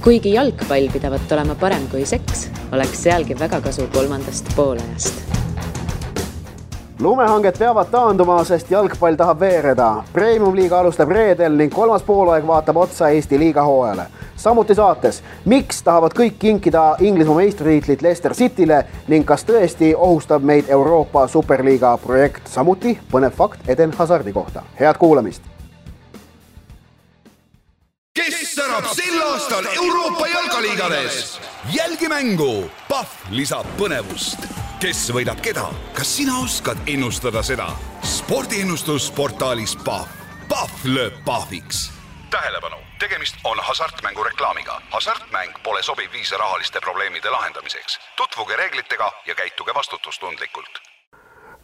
Kuigi jalgpall pidavat olema parem kui seks, oleks sealgi väga kasu kolmandast poolajast. Lumehanged peavad taanduma, sest jalgpall tahab veereda. Premium liiga alustab reedel ning kolmas poolaeg vaatab otsa Eesti liiga hooajale. Samuti saates, miks tahavad kõik kinkida Inglismaa meistritiitlit Leicester Cityle ning kas tõesti ohustab meid Euroopa Superliiga projekt. Samuti põnev fakt Eden Hazardi kohta. Head kuulamist! Kes särab sel aastal Euroopa jalgaliigades? Jälgi mängu! Pahv lisab põnevust. Kes võidab keda? Kas sina oskad ennustada seda? Spordiennustus portaalis Pahv. Pahv lööb pahviks. Tähelepanu! Tegemist on hasartmängu reklaamiga. Hasartmäng pole sobiv viis rahaliste probleemide lahendamiseks. Tutvuge reeglitega ja käituge vastutustundlikult.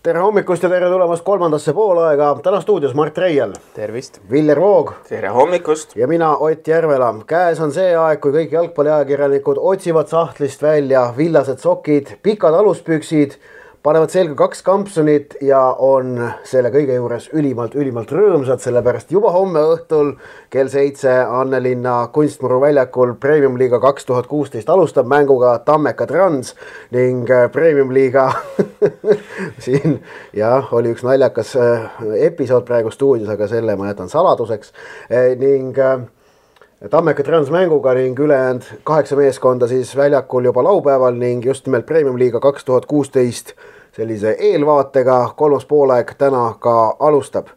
Tere hommikust ja tere tulemast kolmandasse poolaega. Täna stuudios Mart Reiel. Tervist. Viljar Voog. Tere hommikust. Ja mina Ott Järvela. Käes on see aeg, kui kõik jalgpalliajakirjanikud otsivad sahtlist välja villased sokid, pikad aluspüksid, panevad selga 2 kampsunit ja on selle kõige juures ülimalt rõõmsad, sellepärast juba homme õhtul kell 7 Annelinna Kunstmuru väljakul Premium Liiga 2016 alustab mänguga Tammeka Trans ning Premium Liiga siin oli üks naljakas episood praegu stuudios, aga selle ma jätan saladuseks ning Tammeka Trans mänguga ning ülejäänud 8 meeskonda siis väljakul juba laupäeval ning just nimelt Premium Liiga 2016 sellise eelvaatega kolmas poolaeg täna ka alustab.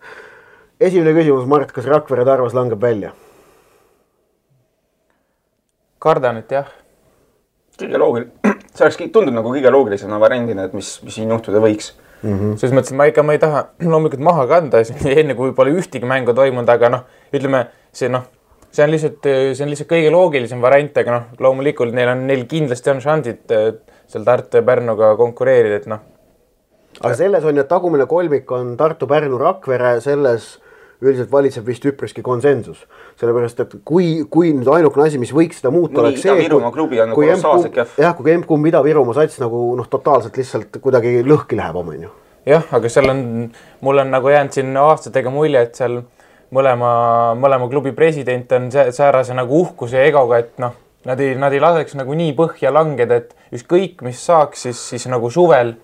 Esimene küsimus, Mart, kas Rakvere Tarvas langeb välja? Kardan, et jah. Kõige loogiline. See oleks tundub nagu kõige loogilisena variandina, et mis siin juhtuda võiks. Selles mõttes, et ma ei taha loomulikult maha kanda enne kui pole ühtegi mängu toimunud, aga ütleme, see on lihtsalt kõige loogilisem variant, aga loomulikult neil kindlasti on šansid seal Tartu ja Pärnuga konkureerida, et Aga selles on, et tagumine kolmik on Tartu, Pärnu, Rakvere, selles üldiselt valitseb vist üpriski konsensus. Sellepärast, et kui nüüd ainukene asi, mis võiks seda muuta, oleks see, kui M-kumb Ida-Virumaa sats nagu totaalselt lihtsalt kuidagi lõhki läheb omenju. Jah, aga mul on nagu jäänud siin aastatega mulje, et seal mõlema klubi president on säärase nagu uhkuse ja egoga, et nad ei laseks nagu nii põhja langeda, et ükskõik mis saaks, siis nagu suvel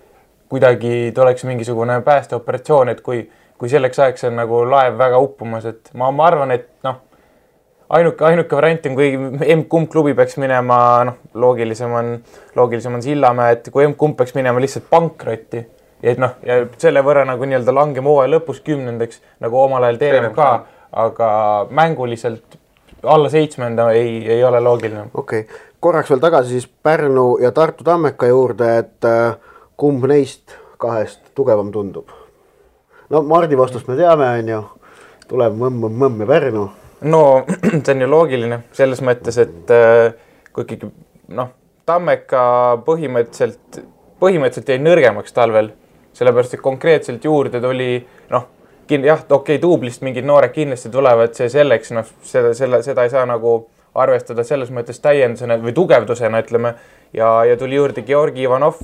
kuidagi tuleks mingisugune päästeoperatsioon, et kui selleks ajaks on nagu laev väga uppumas, et ma arvan, et ainuke variant on, kui M-kumb klubi peaks minema, loogilisem on Sillamäe, et kui M-kumb peaks minema lihtsalt pankrotti, ja selle võrra nagu nii-öelda langema hooaja lõpus 10. nagu omal ajal TMK, aga mänguliselt alla 7. ei ole loogiline. Okei. Korraks veel tagasi siis Pärnu ja Tartu Tammeka juurde, et kumb neist 2 tugevam tundub? Mardi vastust me teame, on ju. Tuleb mõmm ja Pärnu. No, see on ju loogiline selles mõttes, et kui ikkagi, Tammeka põhimõtteliselt jäi nõrgemaks talvel, sellepärast, et konkreetselt juurde tuli, tuublist mingid noored kindlasti tulevad, see selleks, seda ei saa nagu arvestada selles mõttes täiendusena või tugevdusena, ütleme, ja tuli juurde Georgi Ivanov,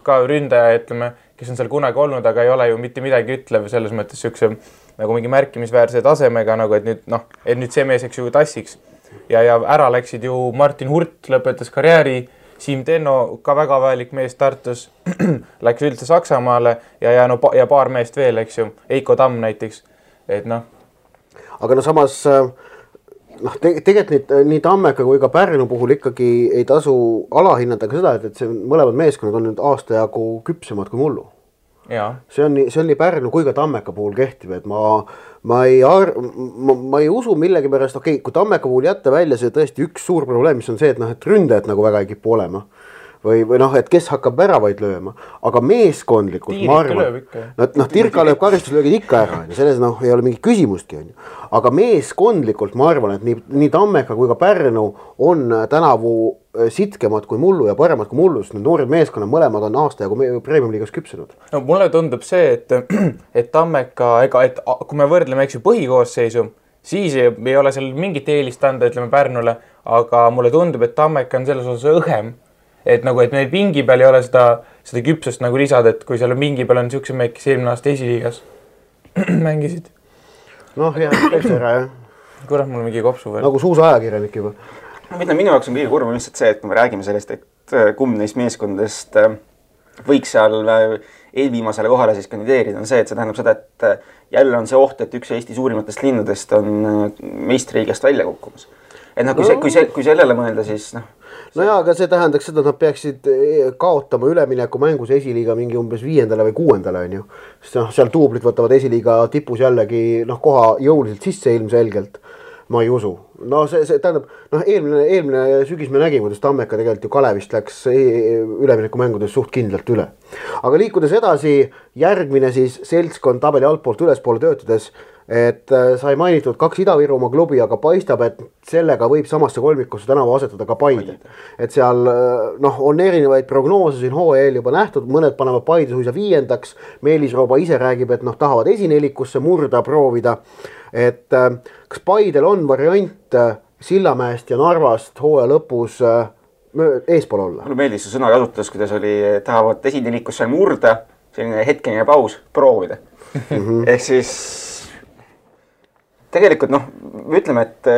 ka ründaja, ütleme, kes on seal kunagi olnud, aga ei ole ju mitte midagi ütlev selles mõttes sükse nagu mingi märkimisväärse tasemega, nagu et nüüd see mees, eks ju, tassiks. Ja ära läksid ju Martin Hurt lõpetas karjääri, Siim Tenno, ka väga vajalik mees Tartus, läks üldse Saksamaale ja paar meest veel, eks ju, Eiko Tamm näiteks, et Aga samas tegelikult nii Tammeka kui ka Pärnu puhul ikkagi ei tasu alahinnata ka seda, et see mõlemad meeskonnad on nüüd aasta jagu küpsemad kui mullu. See on nii Pärnu kui ka Tammeka puhul kehtib, et ma ei usu millegi pärast, kui Tammeka puhul jätta välja see tõesti üks suur probleem, mis on see, et ründajad nagu väga ei kipu olema. Või et kes hakkab väravaid lööma, aga meeskondlikult ma arvan, Tirka lööb karistuslöögid ikka ära, selles ei ole mingi küsimustki, aga meeskondlikult ma arvan, et nii Tammeka kui ka Pärnu on tänavu sitkemad kui mullu ja paremad kui mullu, sest need noored meeskonnad mõlemad on aasta jagu Premium Liigas küpsenud. Mulle tundub see, et Tammeka, kui me võrdleme põhikoosseisu, siis ei ole seal mingit eelist anda, ütleme Pärnule, aga mulle tundub, et Tammeka on selles osas õhem. Et neil pingi peal ei ole seda küpsust nagu lisada, et kui seal pingi peal on niisuguse mehed, kes eelmine aasta esiliigas mängisid. Jah, täitsa ära, jah. Kurat, mul on mingi kopsu veel. Nagu suusaajakirjanik juba. Minu jaoks on kõige kurvam lihtsalt see, et kui me räägime sellest, et kumb neist meeskondadest võiks seal eelviimasele kohale siis kandideerida, on see, et see tähendab seda, et jälle on see oht, et üks Eesti suurimatest linnadest on meistriliigast välja kukkumas. Et kui sellele mõelda, siis jaa, aga see tähendaks seda, et nad peaksid kaotama ülemineku mängus esiliiga mingi umbes 5. või 6. on ju. Sest seal duublid võtavad esiliiga tipus jällegi koha jõuliselt sisse ilmselgelt. Ma ei usu. See tähendab, eelmine sügis me nägime, kuidas Tammeka tegelikult ju Kalevist läks ülemineku mängudes suht kindlalt üle. Aga liikudes edasi, järgmine siis seltskond tabeli altpoolt ülespoole töötades, et sai mainitud 2 Ida-Virumaa klubi, aga paistab, et sellega võib samasse kolmikusse tänavu asetada ka Paide. Et seal on erinevaid prognoose siin hooajal juba nähtud, mõned panevad Paide suisa 5. Meelis Rooba ise räägib, et tahavad esinelikusse murda, proovida. Et kas Paidel on variant Sillamäest ja Narvast hooaja lõpus eespool olla? Mulle meeldis see sõna kasutus, kuidas oli, tahavad esinelikusse murda, selline hetkeline paus, proovida. Ehk siis tegelikult me ütleme, et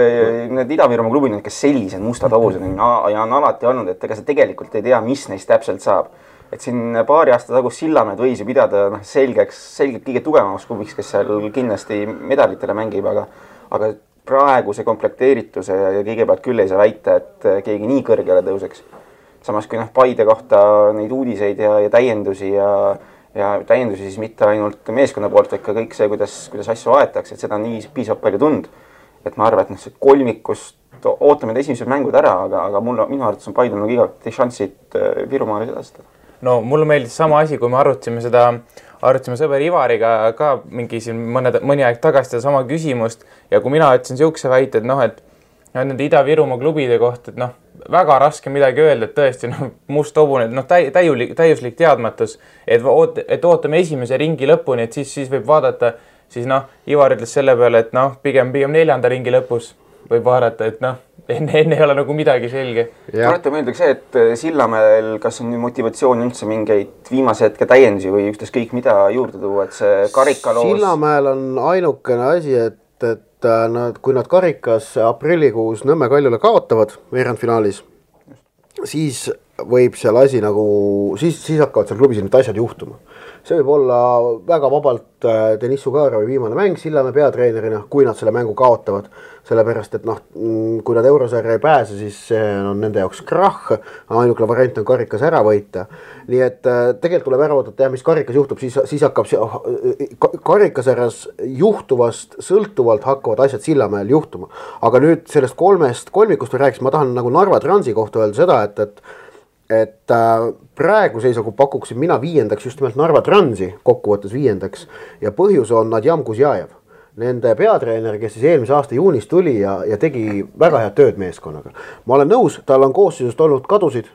need Ida-Virumaa klubid, kes sellised mustad hobused ja on alati olnud, et ega see tegelikult ei tea, mis neist täpselt saab. Et siin paari aasta tagus Sillamäed võis ju pidada selgelt kõige tugevamaks klubiks, kes seal kindlasti medalitele mängib, aga praegu see komplekteerituse ja kõigepealt küll ei saa väita, et keegi nii kõrgele tõuseks. Samas kui Paide kohta neid uudiseid ja täiendusi ja täiendusi siis mitte ainult meeskonna poolt, vaid ka kõik see, kuidas asju aetakse, et seda nii piisab palju tund. Et ma arvan, et see kolmikust ootame esimesed mängud ära, aga minu arvates on Paidel igati šansid Virumaale sedastada. No mulle meeldis sama asi, kui me arutasime sõber Ivariga ka mingi siin mõni aeg tagasi sama küsimust ja kui mina ütlesin siukse väite, et nende Ida-Virumaa klubide kohta, et väga raske midagi öelda, et tõesti must hobune, täiuslik teadmatus, et ootame esimese ringi lõpuni, et siis võib vaadata, siis Ivar ütles selle peale, et pigem 4. ringi lõpus võib vaadata, et enne ei ole midagi selge. Tuletan meelde see, et Sillamäel kas on motivatsioon üldse mingeid viimase hetke täiendusi või ükskõik mida juurde tuua, et see karikaloos... Sillamäel on ainukene asi, et kui nad karikas aprillikuus Nõmme Kaljule kaotavad veerandfinaalis, siis võib seal asi siis hakkavad seal klubis need asjad juhtuma. See võib olla väga vabalt Deniss Sugarovi viimane mäng Sillamäe peatreenerina, kui nad selle mängu kaotavad. Sellepärast, et kui nad eurosarja ei pääse, siis see on nende jaoks krahh. Ainukene variant on karikas ära võita. Nii et tegelikult tuleb ära oodata, mis karikas juhtub, siis hakkab karikasarjas juhtuvast sõltuvalt hakkavad asjad Sillamäel juhtuma. Aga nüüd sellest 3 kolmikust rääkis, ma tahan Narva Transi kohta öelda seda, et praegu seisagu pakuksin mina 5. just nimelt Narva Transi kokkuvõttes 5. ja põhjus on Nadjam Kuzjajev. Nende peatreener, kes siis eelmise aasta juunis tuli ja tegi väga head tööd meeskonnaga. Ma olen nõus, tal on koosseisust olnud kadusid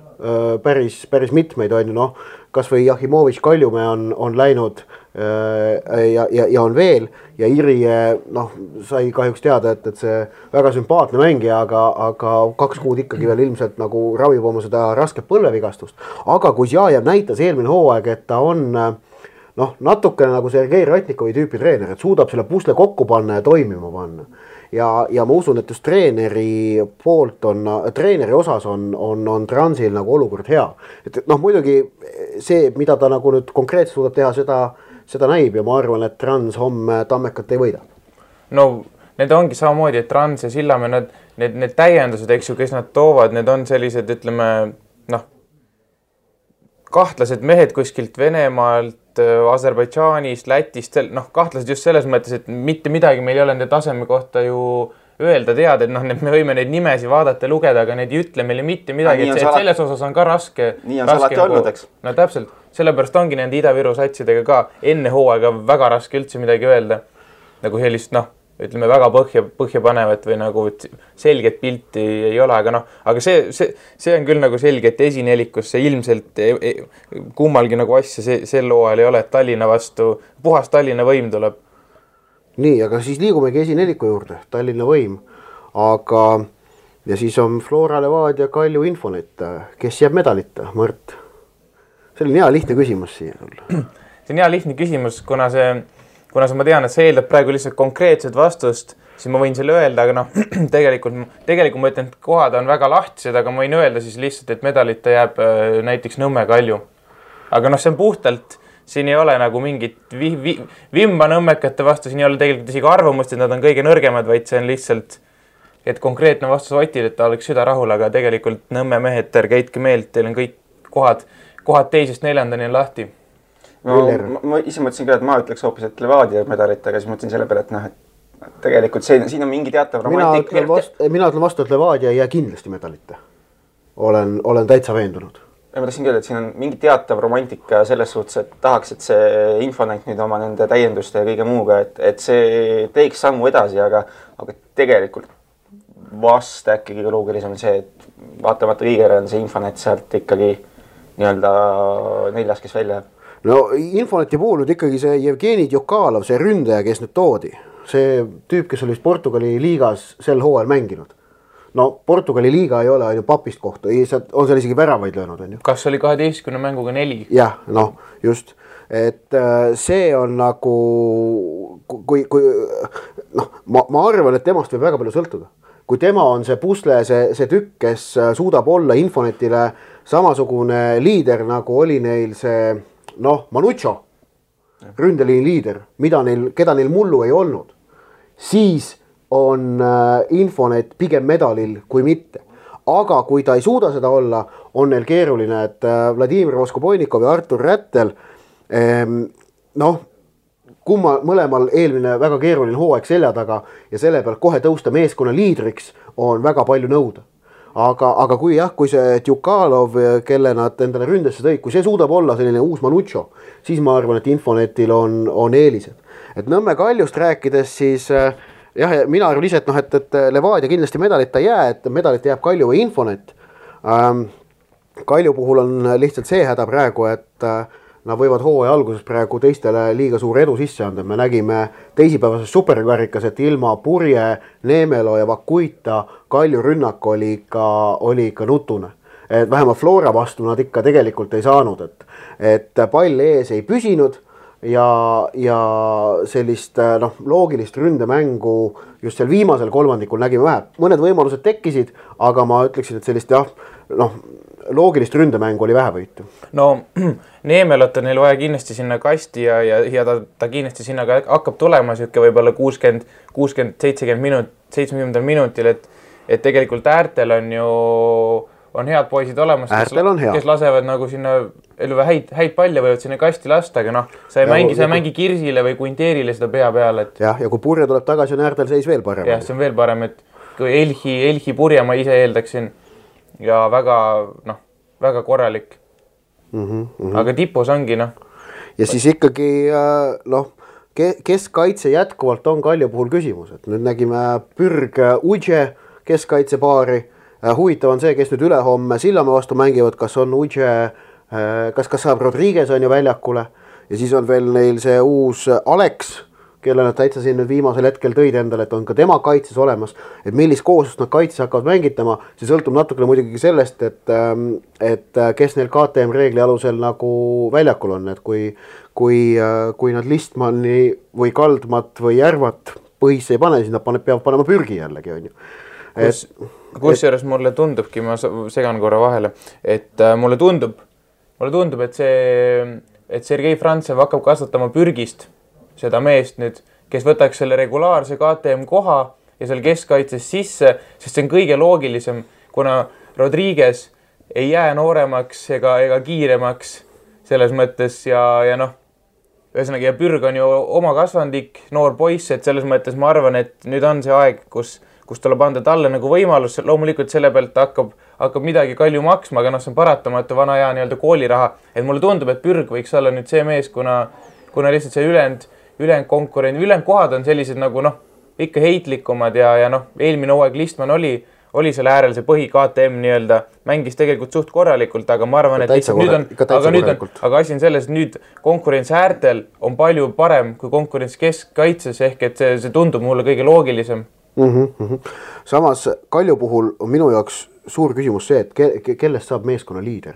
päris mitmeid, kas või Jahimovitš Kaljumäe on läinud ja on veel ja Iri sai kahjuks teada, et see väga sümpaatne mängija, aga 2 kuud ikkagi veel ilmselt ravib oma seda rasket põlvevigastust. Aga Kuzjajev näitas eelmine hooaeg, et ta on natukene Sergei Ratnikovi tüüpi treener, et suudab selle pusle kokku panna ja toimima panna. Ja ma usun, et just treeneri osas on Transil olukord hea. Et muidugi see, mida ta nüüd konkreetselt suudab teha, seda näib ja ma arvan, et Trans homme Tammekat ei võida. Need ongi samamoodi, et Trans ja Sillamäe, need täiendused, kes nad toovad, need on sellised, ütleme, kahtlased mehed kuskilt Venemaalt, Aserbaidžaanist, Lätist, kahtlased just selles mõttes, et mitte midagi meil ei ole nende taseme kohta ju öelda teada, et me võime neid nimesi vaadata ja lugeda, aga need ei ütle meile mitte midagi, et selles osas on ka raske. Nii on salati olnud, eks? No täpselt, sellepärast ongi nende Ida-Viru satsidega ka enne hooaega väga raske üldse midagi öelda. Sellist, ütleme väga põhja panevat või selget pilti ei ole, aga see on küll selge, et esinelikusse ilmselt kummalgi asja sel hooajal ei ole, et Tallinna vastu, puhas Tallinna võim tuleb. Nii, aga siis liigumegi esineliku juurde, Tallinna võim, ja siis on Flora Levadia Kalju Infonet, kes jääb medalita, Mart? See on hea lihtne küsimus siia sulle. See on hea lihtne küsimus, kuna ma tean, et see eeldab praegu lihtsalt konkreetset vastust, siis ma võin selle öelda, aga noh, tegelikult ma ütlen, et kohad on väga lahtised, aga ma võin öelda siis lihtsalt, et medalita jääb näiteks Nõmme Kalju. Aga noh, see on puhtalt, siin ei ole nagu mingit vimba nõmmekate vastu, siin ei ole tegelikult isegi arvamust, et nad on kõige nõrgemad, vaid see on lihtsalt, et konkreetne vastus Otil, et ta oleks süda rahul, aga tegelikult Nõmme mehed, ärge heitke meelt, teil on kõik kohad 2.–4. on lahti. No, ma ise mõtlesin ka, et ma ütleks hoopis, et Levadia medalit, aga siis mõtlesin selle peale, et noh, et tegelikult siin on mingi teatav romantik. Mina ütlen vastu, et Levadia ei jää kindlasti medalite. Olen täitsa veendunud. Ma tahtsin öelda, et siin on mingi teatav romantika selles suhtes, et tahaks, et see Infonet nüüd oma nende täienduste ja kõige muuga, et see teeks sammu edasi, aga tegelikult vast äkki kõige loogilisem on see, et vaatamata kõigele on see Infonet sealt ikkagi nii-öelda 4, kes välja jääb. No Infoneti puhul nüüd ikkagi see Jevgeni Djukalov, see ründaja, kes nüüd toodi, see tüüp, kes oli Portugali liigas sel hooajal mänginud. No Portugali liiga ei ole ainult papist kohta, on seal isegi väravaid löönud, on ju. Kas oli 12 mänguga 4? Jah, noh, just. Et see on nagu, kui noh, ma arvan, et temast võib väga palju sõltuda. Kui tema on see pusle, see tükk, kes suudab olla Infonetile samasugune liider, nagu oli neil see, noh, Manucho, ründeliini liider, keda neil mullu ei olnud, siis on Infonet pigem medalil kui mitte. Aga kui ta ei suuda seda olla, on neil keeruline, et Vladimir Voskoboinikov ja Artur Rättel, noh, mõlemal eelmine väga keeruline hooaeg selja taga ja selle pealt kohe tõusta meeskonna liidriks on väga palju nõuda. Aga kui see Djukalov, kelle nad endale ründesse tõid, kui see suudab olla selline uus Manucho, siis ma arvan, et Infonetil on eelised. Et Nõmme Kaljust rääkides siis jah, mina arvan ise, et Levadia kindlasti medalita jää, et medalita jääb Kalju või Infonet. Kalju puhul on lihtsalt see häda praegu, et nad võivad hooaja alguses praegu teistele liiga suur edu sisse anda. Me nägime teisipäevases superkarikas, et ilma Purje, Neemelo ja Vakuita Kalju rünnak oli ikka nutune. Et vähemalt Flora vastu nad ikka tegelikult ei saanud, et pall ees ei püsinud ja sellist loogilist ründemängu just seal viimasel kolmandikul nägime vähe. Mõned võimalused tekkisid, aga ma ütleksin, et sellist loogilist ründemängu oli vähe võitu. No Neemelot on neil vaja kindlasti sinna kasti ja ta kindlasti sinna ka hakkab tulema siuke võib-olla 60-70 minutil, et tegelikult äärtel on head poisid olemas, kes lasevad nagu sinna häid palle võivad sinna kasti lasta, aga noh, sa ei mängi Kirsile või Quinterile seda pea peale. Ja kui Purje tuleb tagasi, on äärtel seis veel parem. Jah, see on veel parem, et kui Elhi Purje ma ise eeldaksin ja väga korralik. Aga tipus ongi, noh. Ja siis ikkagi, keskkaitse jätkuvalt on Kalju puhul küsimus, et nüüd nägime Pürg Udje keskkaitsepaari. Huvitav on see, kes nüüd ülehomme Sillamäe vastu mängivad, kas on Udje, kas saab Rodriguez on ju väljakule ja siis on veel neil see uus Alex, kelle nad täitsa siin nüüd viimasel hetkel tõid endale, et on ka tema kaitses olemas, et millist kooslust nad kaitses hakkavad mängitama, see sõltub natukene muidugi sellest, et kes neil KTM reegli alusel nagu väljakul on, et kui nad Listmanni või Kaldmat või Järvat põhisse ei pane, siis nad peavad panema Pürgi jällegi, on ju. Kusjuures mulle tundubki, ma segan korra vahele, et mulle tundub, et Sergei Frantsev hakkab kasvatama Pürgist seda meest nüüd, kes võtaks selle regulaarse KTM koha ja seal keskkaitses sisse, sest see on kõige loogilisem, kuna Rodriguez ei jää nooremaks ega kiiremaks selles mõttes ja ühesõnaga ja Pürg on ju oma kasvandik, noor poiss, et selles mõttes ma arvan, et nüüd on see aeg, kus tuleb anda talle nagu võimalus, loomulikult selle pealt hakkab midagi Kalju maksma, aga see on paratamatu vana hea nii-öelda kooliraha, et mulle tundub, et Pürg võiks olla nüüd see mees, kuna lihtsalt see ülejäänud kohad on sellised nagu ikka heitlikumad ja eelmine hooaeg Listman oli selle äärel see põhi KTM nii-öelda, mängis tegelikult suht korralikult, aga ma arvan, et aga asi on selles, et nüüd konkurents äärtel on palju parem kui konkurents keskkaitses, ehk et see tundub mulle kõige loogilisem. Samas Kalju puhul on minu jaoks suur küsimus see, et kellest saab meeskonna liider,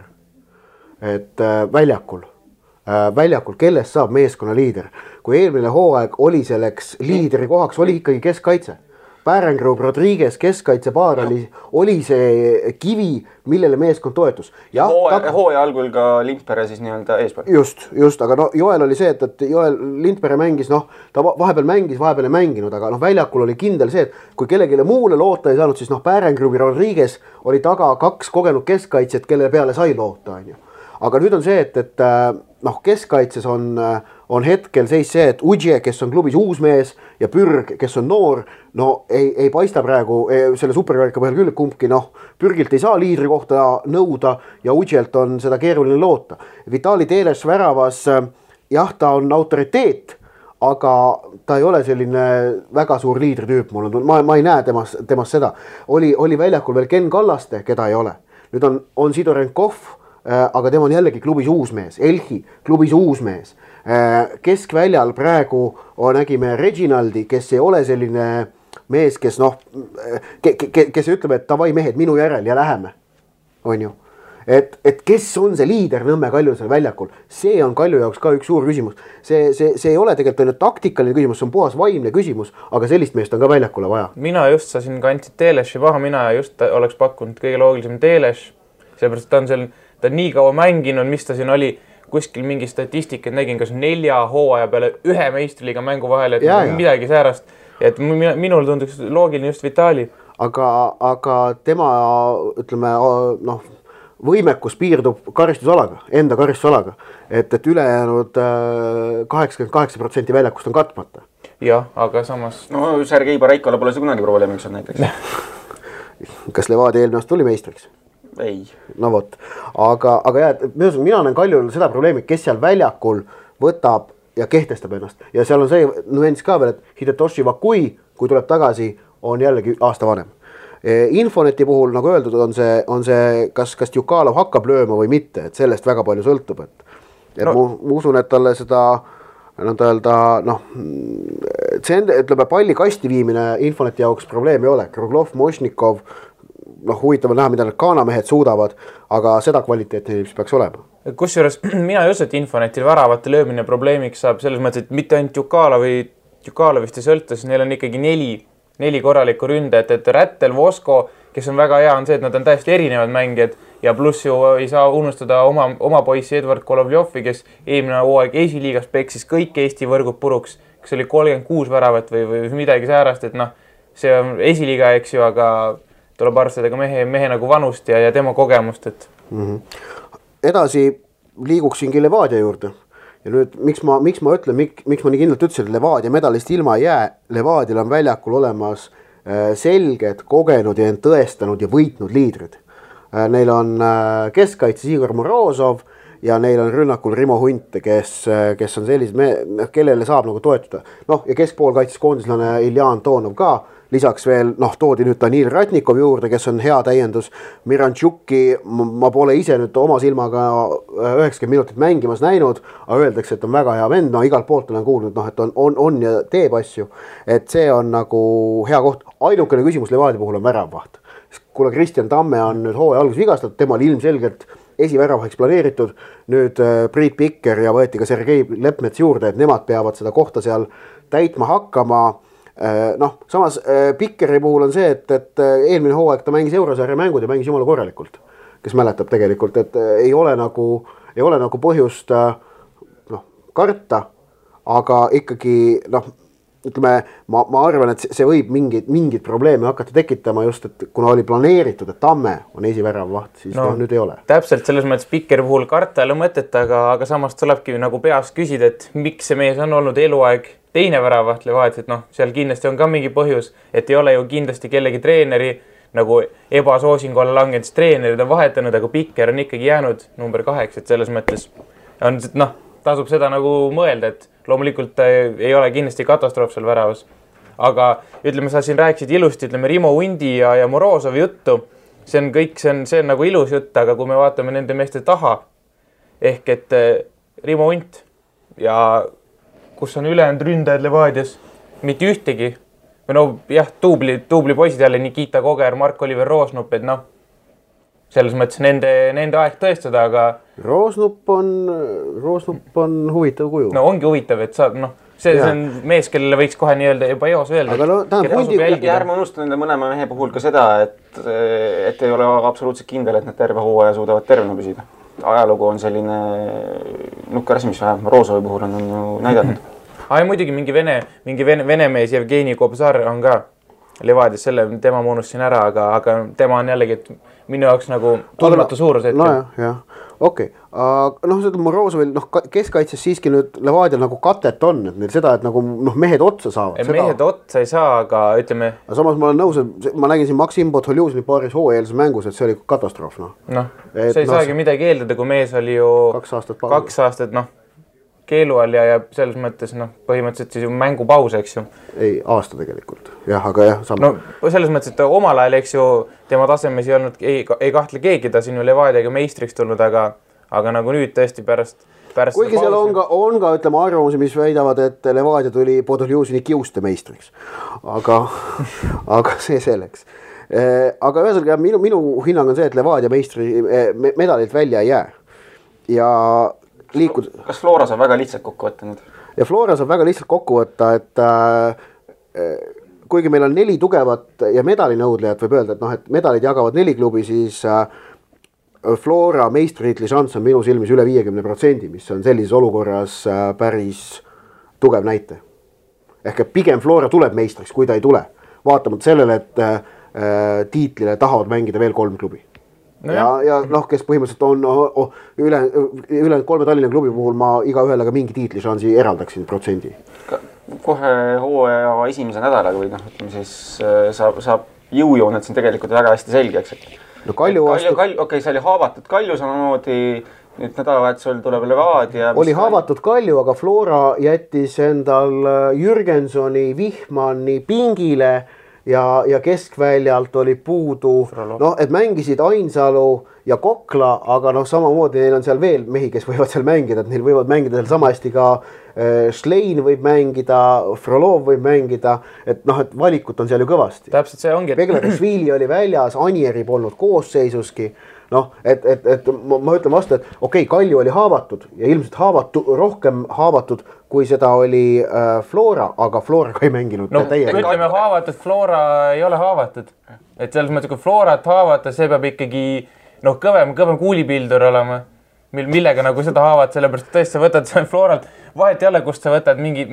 et väljakul, kellest saab meeskonna liider, kui eelmine hooaeg oli selleks liidri kohaks, oli ikkagi keskkaitse, Pärengrub, Rodriguez, keskkaitsepaar oli see kivi, millele meeskond toetus. Hooaja algul ka Lindpere siis nii-öelda eespool. Just, aga no Joel oli see, et Joel Lindpere mängis, ta vahepeal mängis, vahepeal ei mänginud, aga väljakul oli kindel see, et kui kellelegi muule loota ei saanud, siis Pärengrub ja Rodriguez oli taga 2 kogenud keskkaitset, kelle peale sai loota, on ju. Aga nüüd on see, et keskkaitses on hetkel seis see, et Udje, kes on klubis uus mees ja Pürg, kes on noor, ei paista praegu selle superkarika põhjal küll, kumbki Pürgilt ei saa liidri kohta nõuda ja Udjelt on seda keeruline loota. Vitali Teles väravas, jah, ta on autoriteet, aga ta ei ole selline väga suur liidritüüp, ma ei näe temast seda. Oli väljakul veel Ken Kallaste, keda ei ole. Nüüd on Sidorenkov, aga tema on jällegi klubis uus mees, Elhi klubis uus mees. Keskväljal praegu nägime Reginaldi, kes ei ole selline mees, kes ütleb, et davai mehed minu järel ja läheme, on ju. Et kes on see liider Nõmme Kalju seal väljakul, see on Kalju jaoks ka üks suur küsimus. See ei ole tegelikult ainult taktikaline küsimus, see on puhas vaimne küsimus, aga sellist meest on ka väljakule vaja. Mina just sain kandsid Teleši paha, mina just oleks pakkunud kõige loogilisem Teleš, seepärast ta on nii kaua mänginud, mis ta siin oli, kuskil mingi statistikat nägin, kas 4 hooaja peale 1 meistriliiga mängu vahel, et midagi säärast. Et minul tunduks loogiline just Vitali. Aga tema, ütleme, võimekus piirdub karistusalaga, enda karistusalaga, et ülejäänud 88% väljakust on katmata. Jah, aga samas... No Sergei Baraikole pole see kunagi probleemiks on näiteks. Kas Levadia eelmine aasta tuli meistriks? Ei. No vot, aga mina näen Kaljul seda probleemi, kes seal väljakul võtab ja kehtestab ennast. Ja seal on see nüanss ka veel, et Hidetoshi Vakui, kui tuleb tagasi, on jällegi aasta vanem. Infoneti puhul, nagu öeldud, on see kas Djukalov hakkab lööma või mitte, et sellest väga palju sõltub. Ma usun, et talle seda, ütleme, palli kasti viimine Infoneti jaoks probleem ei ole. Kruglov, Mošnikov, huvitav on näha, mida need kaanamehed suudavad, aga seda kvaliteeti mis peaks olema. Kusjuures mina ei usu, et Infonetil väravate löömine probleemiks saab selles mõttes, et mitte ainult Djukalovist ei sõlta, siis neil on ikkagi 4 korralikku ründajat, et Rättel, Vosko, kes on väga hea, on see, et nad on täiesti erinevad mängijad ja pluss ju ei saa unustada oma poissi Edward Kolovjovi, kes eelmine hooaeg esiliigas peksis kõik Eesti võrgud puruks, kes oli 36 väravat või midagi säärast, et see on esiliiga, eks ju, aga tuleb arvestada ka mehe nagu vanust ja tema kogemust, et... Edasi liiguksingi Levadia juurde. Ja nüüd, miks ma ütlen, miks ma nii kindlalt ütlesin, et Levadia medalist ilma ei jää, Levadial on väljakul olemas selged, kogenud ja end tõestanud ja võitnud liidrid. Neil on keskkaitses Igor Morozov ja neil on rünnakul Rimo Hunt, kes on sellised, kellele saab nagu toetuda. Ja keskpool kaitses koondislane Ilja Antonov ka. Lisaks veel, toodi nüüd Danil Ratnikov juurde, kes on hea täiendus. Mirantšuki ma pole ise nüüd oma silmaga 90 minutit mängimas näinud, aga öeldakse, et on väga hea vend. Igalt poolt olen kuulnud, et on ja teeb asju. Et see on nagu hea koht. Ainukene küsimus Levadia puhul on väravvaht. Kuna Kristjan Tamme on nüüd hooaja alguses vigastatud, tema oli ilmselgelt esiväravaheks planeeritud. Nüüd Priit Pikker ja võeti ka Sergei Lepmets juurde, et nemad peavad seda kohta seal täitma hakkama. Samas Pikkeri puhul on see, et eelmine hooaeg ta mängis Eurosarja mängud ja mängis jumala korralikult, kes mäletab tegelikult, et ei ole nagu põhjust karta, aga ikkagi ütleme, ma arvan, et see võib mingid probleeme hakata tekitama just, et kuna oli planeeritud, et Tamme on esiväravvaht, siis nüüd ei ole. Täpselt selles mõttes Pikkeri puhul karta ei ole mõtet, aga samas tulebki nagu peas küsida, et miks see mees on olnud eluaeg teine väravaht Levadia, et seal kindlasti on ka mingi põhjus, et ei ole ju kindlasti kellegi treeneri nagu ebasoosingu alla langenud, treenerid on vahetanud, aga Pikker on ikkagi jäänud number 8, et selles mõttes on, tasub seda nagu mõelda, et loomulikult ei ole kindlasti katastroof seal väravas. Aga ütleme, sa siin rääkisid ilusti, ütleme Rimo Hundi ja Morozovi juttu, see on nagu ilus jutt, aga kui me vaatame nende meeste taha, ehk et Rimo Hunt ja kus on ülejäänud ründajad Levadias, mitte ühtegi. Või tuubli poisid jälle Nikita Koger, Mark-Oliver Roosnup, et selles mõttes nende aeg tõestada, aga... Roosnup on huvitav kuju. Ongi huvitav, et see on mees, kellele võiks kohe nii-öelda juba eos öelda. Aga no, ja ärme unusta nende mõlema mehe puhul ka seda, et ei ole absoluutselt kindel, et nad terve hooaja suudavad tervena püsida. Ajalugu on selline nukker asi, mis vähem Roosovi puhul on ju näidanud. Muidugi mingi vene mees Jevgeni Kobzar on ka Levadias, selle tema ma unustasin ära, aga tema on jällegi minu jaoks nagu tundmatu suurus hetkel. No jah, okei. Seda Morozovil keskkaitses siiski nüüd Levadial nagu katet on, et neil seda, et nagu mehed otsa saavad. Mehed otsa ei saa, aga ütleme... Samas ma olen nõus, et ma nägin siin Maksim Podholjuzini paaris hooajalise mängus, et see oli katastroof. See ei saagi midagi eeldada, kui mees oli ju 2 aastat keelu all ja selles mõttes põhimõtteliselt siis ju mängupaus, eks ju. Ei, aasta tegelikult. Jah, aga jah. Selles mõttes, et omal ajal, eks ju, tema tasemes ei olnud, ei kahtle keegi, ta siin ju Levadiaga meistriks tulnud, aga nagu nüüd tõesti pärast kuigi seal on ka ütleme arvamusi, mis väidavad, et Levadia tuli Podholjuzini kiuste meistriks. Aga see selleks. Aga ühesõnaga minu hinnang on see, et Levadia meistri medalilt välja ei jää. Ja Kas Flora saab väga lihtsalt kokku võtta nüüd? Ja Flora saab väga lihtsalt kokku võtta, et kuigi meil on 4 tugevat ja medalinõudlejat, võib öelda, et medalid jagavad 4 klubi, siis Flora meistritiitli šanss on minu silmis üle 50%, mis on sellises olukorras päris tugev näite. Ehk pigem Flora tuleb meistriks, kui ta ei tule. Vaatamata sellele, et tiitlile tahavad mängida veel 3 klubi. Ja kes põhimõtteliselt on üle 3 Tallinna klubi puhul ma iga ühele ka mingi tiitlišansi eraldaksin protsendi. Kohe hooaja esimese nädalaga või ütleme siis saab jõujooned siin tegelikult väga hästi selgeks. Okei, see oli haavatud Kalju samamoodi, nüüd nädalavahetusel tuleb Levadia. Oli haavatud Kalju, aga Flora jättis endal Jürgensoni, Vihmani pingile ja keskväljalt oli puudu, et mängisid Ainsalu ja Kokla, aga samamoodi neil on seal veel mehi, kes võivad seal mängida, et neil võivad mängida seal sama hästi ka Schlein võib mängida, Frolov võib mängida, et valikut on seal ju kõvasti. Täpselt see ongi. Beglarishvili oli väljas, Anieri polnud koosseisuski. Et ma ütlen vastu, et okei, Kalju oli haavatud ja ilmselt rohkem haavatud, kui seda oli Flora, aga Flora ka ei mänginud. Ütleme haavatud, Flora ei ole haavatud. Et selles mõttes, kui Florat haavata, see peab ikkagi kõvem kuulipildur olema, millega nagu seda haavad, sellepärast tõesti sa võtad Floralt, vahet ei ole, kust sa võtad mingi,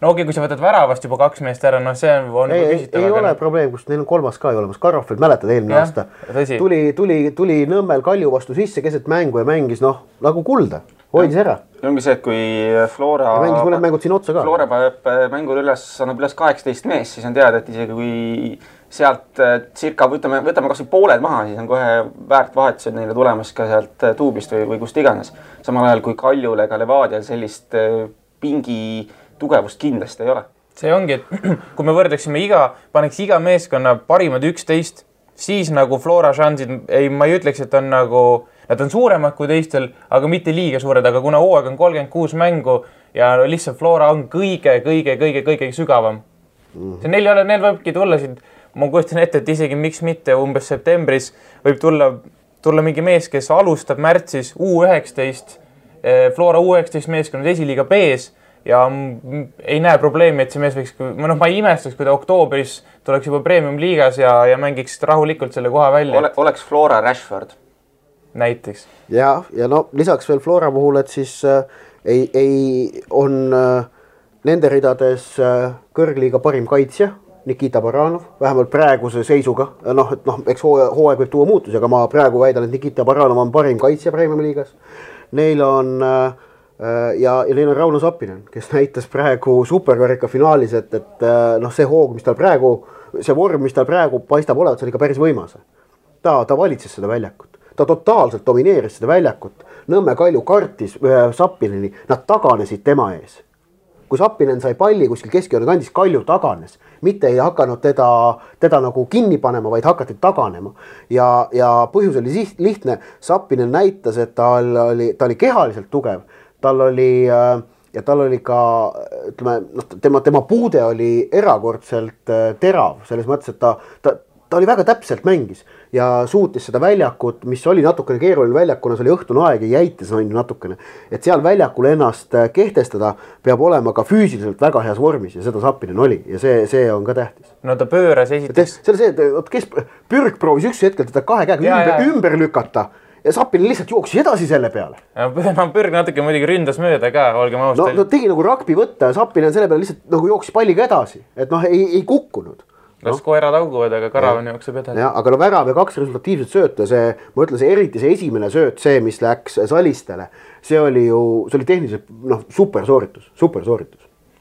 kui sa võtad väravast juba 2 meest ära, see on küsitav. Ei ole probleem, kus neil on 3. ka ei olemas. Karofeld, mäletad eelmine aasta. Tuli Nõmmel Kalju vastu sisse keset mängu ja mängis nagu kulda. Hoidis ära. Ja ongi see, et kui Flora paneb mängul annab üles 18 mees, siis on teada, et isegi kui sealt circa, võtame kas või pooled maha, siis on kohe väärt vahetused neile tulemas ka sealt tuubist või kust iganes. Samal ajal kui Kaljule ega Levadial sellist pingi tugevust kindlasti ei ole. See ongi, et kui me võrdleksime paneks iga meeskonna parimad 11, siis nagu Flora šansid, ma ei ütleks, et on nagu, nad on suuremad kui teistel, aga mitte liiga suured, aga kuna hooaeg on 36 mängu ja lihtsalt Flora on kõige sügavam. Neil võibki tulla siin, ma kujutan ette, et isegi miks mitte umbes septembris võib tulla mingi mees, kes alustab märtsis U19, Flora U19 meeskond esiliiga B-s ja ei näe probleemi, et see mees võiks, ma ei imestaks, kui ta oktoobris tuleks juba premium liigas ja mängiks rahulikult selle koha välja. Oleks Flora Rashford. Näiteks. Ja lisaks veel Flora puhul, et siis on nende ridades kõrgliiga parim kaitsja, Nikita Baranov, vähemalt praeguse seisuga. Eks hooaeg võib tuua muutusi, aga ma praegu väidan, et Nikita Baranov on parim kaitsja premium liigas. Neil on neil on Rauno Sappinen, kes näitas praegu superkarika finaalis, et see hoog, mis tal praegu, see vorm, mis tal praegu paistab olevat, see oli ka päris võimas. Ta valitses seda väljakut. Ta totaalselt domineeris seda väljakut. Nõmme Kalju kartis Sappineni, nad taganesid tema ees. Kui Sappinen sai palli kuskil keskjoone kandis, Kalju taganes. Mitte ei hakanud teda nagu kinni panema, vaid hakati taganema. Ja põhjus oli lihtne. Sappinen näitas, et ta oli kehaliselt tugev. Tal oli ka, ütleme, tema puude oli erakordselt terav. Selles mõttes, et ta oli väga täpselt mängis. ja suutis seda väljakut, mis oli natukene keeruline väljakuna, see oli õhtune aeg ja jäitis on ju natukene. Et seal väljakul ennast kehtestada peab olema ka füüsiliselt väga heas vormis ja seda Zappinen oli ja see on ka tähtis. No ta pööras esiteks. See oli see, et kes Pürg proovis üks hetkel teda kahe käega ümber lükata ja Zappinen lihtsalt jooksis edasi selle peale. No Pürg natuke muidugi ründas mööda ka, olgem austal. No tegi nagu rugby võtta ja Zappinen selle peale lihtsalt nagu jooksis palliga edasi, et ei kukkunud. Kas koerad auguvad, aga Karavan jookseb edasi. Ja, aga värav ja 2 resultatiivset sööta, ma ütlen, eriti see esimene sööt, see, mis läks Salistele, see oli tehniliselt super sooritus.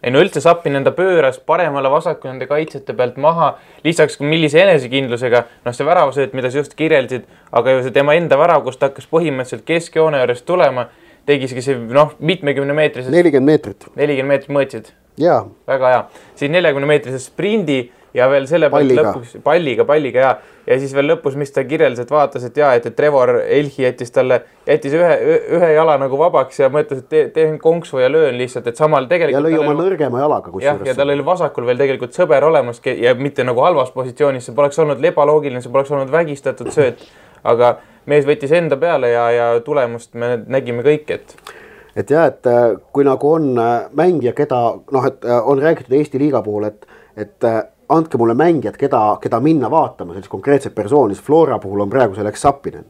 Ei no üldse Zappinen enda pööras paremale vasaku nende kaitsjate pealt maha, lisaks millise enesekindlusega, see väravasööt, mida sa just kirjeldasid, aga ju see tema enda värav, kus ta hakkas põhimõtteliselt keskjoone juures tulema, tegiski see mitmekümne meetrisest 40 meetrit mõõtsid. Jaa. Väga hea. Siis 40 meetrisest sprindi ja veel selle lõpuks palliga ja siis veel lõpus, mis ta kirjeldas, et vaatas, et Trevor Elhi jättis ühe jala nagu vabaks ja mõtles, et teen konksu ja löön lihtsalt, et samal tegelikult ja lõi oma nõrgema jalaga kusjuures. Ja tal oli vasakul veel tegelikult sõber olemas ja mitte nagu halvas positsioonis, see poleks olnud ebaloogiline, see poleks olnud vägistatud sööt, aga mees võttis enda peale ja tulemust me nägime kõik, et kui nagu on mängija, keda on räägitud Eesti liiga puhul, et andke mulle mängijad, keda minna vaatama, sellist konkreetset persooni, Flora puhul on praegu selleks Zappinen.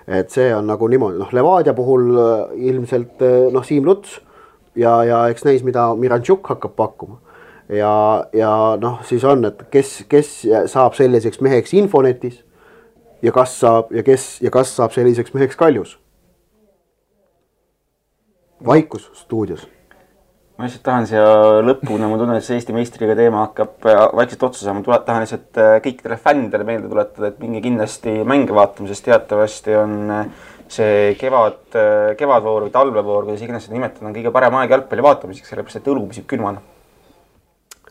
Et see on nagu niimoodi, Levadia puhul ilmselt Siim Luts ja eks näis, mida Miranchuk hakkab pakkuma. Ja siis on, et kes saab selliseks meheks Infonetis ja kas saab selliseks meheks Kaljus. Vaikus stuudios. Ma lihtsalt tahan siia lõpuna, ma tunnen, et see Eesti meistriga teema hakkab vaikselt otsa saama. Ma tahan lihtsalt kõikidele fännidele meelde tuletada, et minge kindlasti mänge vaatama, sest teatavasti on see kevadvoor või talvevoor, kuidas iganes seda nimetada, on kõige parem aeg jalgpalli vaatamiseks, sellepärast et õlu püsib külmana.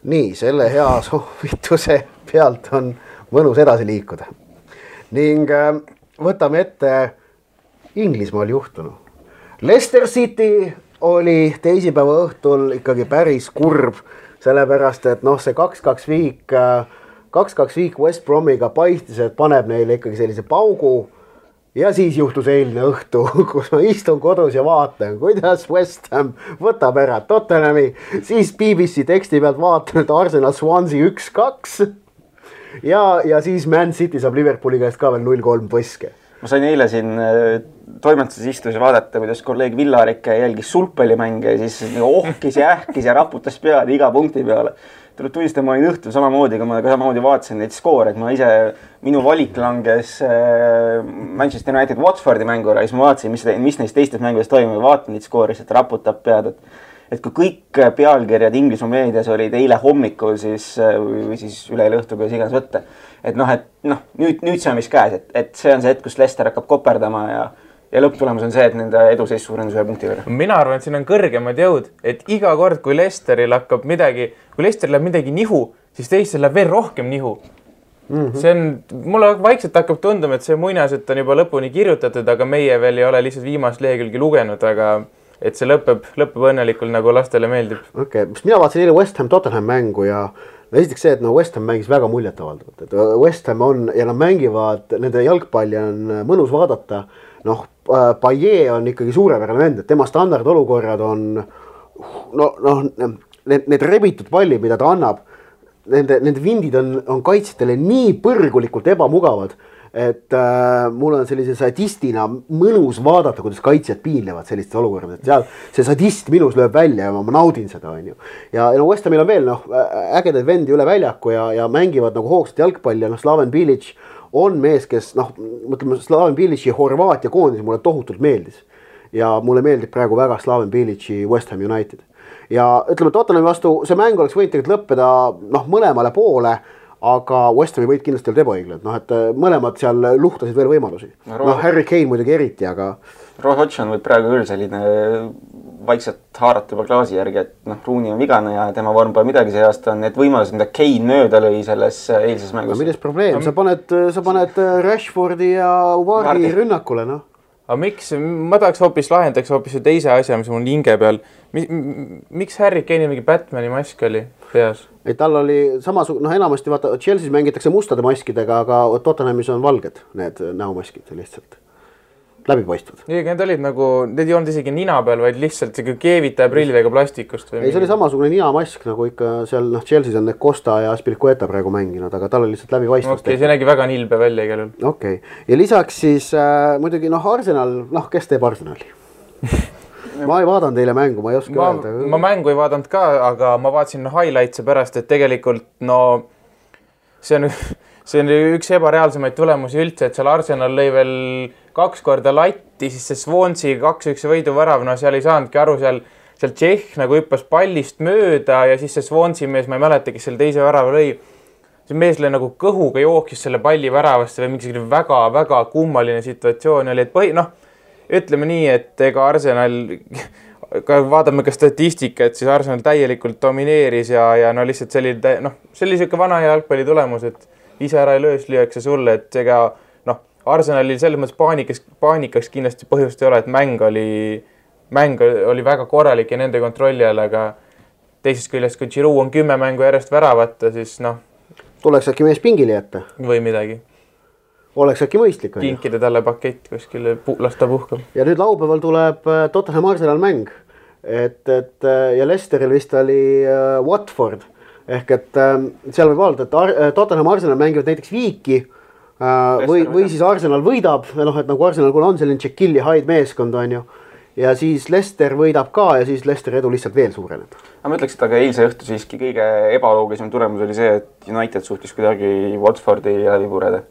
Nii, selle hea soovituse pealt on mõnus edasi liikuda. Ning võtame ette Inglismaal juhtunu. Leicester City oli teisipäeva õhtul ikkagi päris kurb, sellepärast, et see 2-2 viik West Bromiga paistis, et paneb neile ikkagi sellise paugu ja siis juhtus eilne õhtu, kus ma istun kodus ja vaatan, kuidas West Ham võtab ära Tottenhami, siis BBC teksti pealt vaatan, et Arsenal Swansea 1-2 ja siis Man City saab Liverpooli käest ka veel 0-3 põske. Ma sain eile siin toimetuses istus vaadata, kuidas kolleeg Villarik jälgis sulgpallimänge ja siis ohkis ja ähkis ja raputas pead iga punkti peale. Tuleb tunnistama, ma olin õhtul samamoodi, kui ma samamoodi vaatasin neid skoore, et minu valik langes Manchester United Watfordi mängura ja siis ma vaatasin, mis neist teistes mängudes toimub ja vaatan neid skoori, et raputab pead, et kui kõik pealkirjad Inglismaa meedias olid eile hommikul või siis üleeile õhtul, kuidas iganes võtta. Et nüüd see on vist käes, et see on see hetk, kus Leicester hakkab koperdama ja lõpptulemus on see, et nende eduseis suurendus 1 punkti võrra. Mina arvan, et siin on kõrgemad jõud, et iga kord, kui Leicesteril läheb midagi nihu, siis teistel läheb veel rohkem nihu. Mulle vaikselt hakkab tunduma, et see muinasjutt on juba lõpuni kirjutatud, aga meie veel ei ole lihtsalt viimast lehekülgi lugenud, aga et see lõpeb õnnelikult, nagu lastele meeldib. Okei, mina vaatasin eile West Ham Tottenham mängu ja esiteks see, et West Ham mängis väga muljetavaldavalt. Et West Ham on ja nad mängivad, nende jalgpalli on mõnus vaadata. Payet on ikkagi suurepärane vend, et tema standardolukorrad on need rebitud pallid, mida ta annab, nende vindid on kaitsjatele nii põrgulikult ebamugavad, et mul on sellise sadistina mõnus vaadata, kuidas kaitsjad piinlevad sellistes olukordades, et seal see sadist minus lööb välja ja ma naudin seda, on ju. Ja West Hamil on veel ägedaid vendi üle väljaku ja mängivad nagu hoogsat jalgpalli ja Slaven Bilic on mees, kes mõtleme, Slaven Bilici Horvaatia koondis mulle tohutult meeldis. Ja mulle meeldib praegu väga Slaven Bilici West Ham United. Ja ütleme, Tottenhami vastu see mäng oleks võinud tegelikult lõppeda mõlemale poole, aga West Hami võid kindlasti olla ebaõiglane, et mõlemad seal luhtasid veel võimalusi. Harry Kane muidugi eriti, aga Roy Hodgson võib praegu küll selline vaikselt haarata juba klaasi järgi, et Rooney on vigane ja tema vorm pole midagi see aasta, on need võimalused, mida Kane mööda lõi selles eilses mängus. Milles probleem? Sa paned Rashfordi ja Vardy rünnakule, Aga miks? Ma tahaks lahendaks hoopis teise asja, mis mul hinge peal. Miks Harry Kane'i mingi Batmani mask oli peas? et tal oli samasugune, enamasti vaata Chelsea's mängitakse mustade maskidega, aga Tottenhamis on valged need näomaskid lihtsalt. Läbipaistvad. Need olid nagu, need ei olnud isegi nina peal, vaid lihtsalt keevitaja prillidega plastikust. Ei, see oli samasugune ninamask, nagu ikka seal Chelsea's on need Costa ja Aspilicueta praegu mänginud, aga tal oli lihtsalt läbipaistvust. See nägi väga nilbe välja igal juhul. Okei. Ja lisaks siis muidugi Arsenal, kes teeb Arsenali? Ma ei vaadanud teile mängu, ma ei oska öelda. Ma mängu ei vaadanud ka, aga ma vaatasin highlights'e pärast, et tegelikult see on üks ebareaalsemaid tulemusi üldse, et seal Arsenal lõi veel 2 korda latti, siis see Swansea 2-1 võiduvärav, seal ei saanudki aru, seal Tšehh nagu hüppas pallist mööda ja siis see Swansea mees, ma ei mäleta, kes seal teise värava lõi. See mees lõi nagu kõhuga jooksis selle palli väravast või mingi väga kummaline situatsioon oli, et ütleme nii, et ega Arsenal, vaatame ka statistika, et siis Arsenal täielikult domineeris ja lihtsalt see oli selline vana jalgpalli tulemus, et ise ära ei löös, lüüakse sulle, et ega Arsenalil selles mõttes paanikaks kindlasti põhjust ei ole, et mäng oli väga korralik ja nende kontrolli all, aga teisest küljest, kui Giroud on 10 mängu järjest väravata, siis tuleks äkki mees pingile jätta? Või midagi. Oleks äkki mõistlik. Kinkida talle pakett kuskile, lasta puhkab. Ja nüüd laupäeval tuleb Tottenham Arsenal mäng. Ja Leicesteril vist oli Watford. Ehk et seal võib öelda, et Tottenham Arsenal mängivad näiteks viiki või siis Arsenal võidab. Et nagu Arsenal kun on selline Jekyll ja Hyde meeskond on ju. Ja siis Leicester võidab ka ja siis Leicester edu lihtsalt veel suureneb. Ma ütleks, et aga eilse õhtu siiski kõige ebaloogilisem tulemus oli see, et United suhtis kuidagi Watfordi läbi pureda.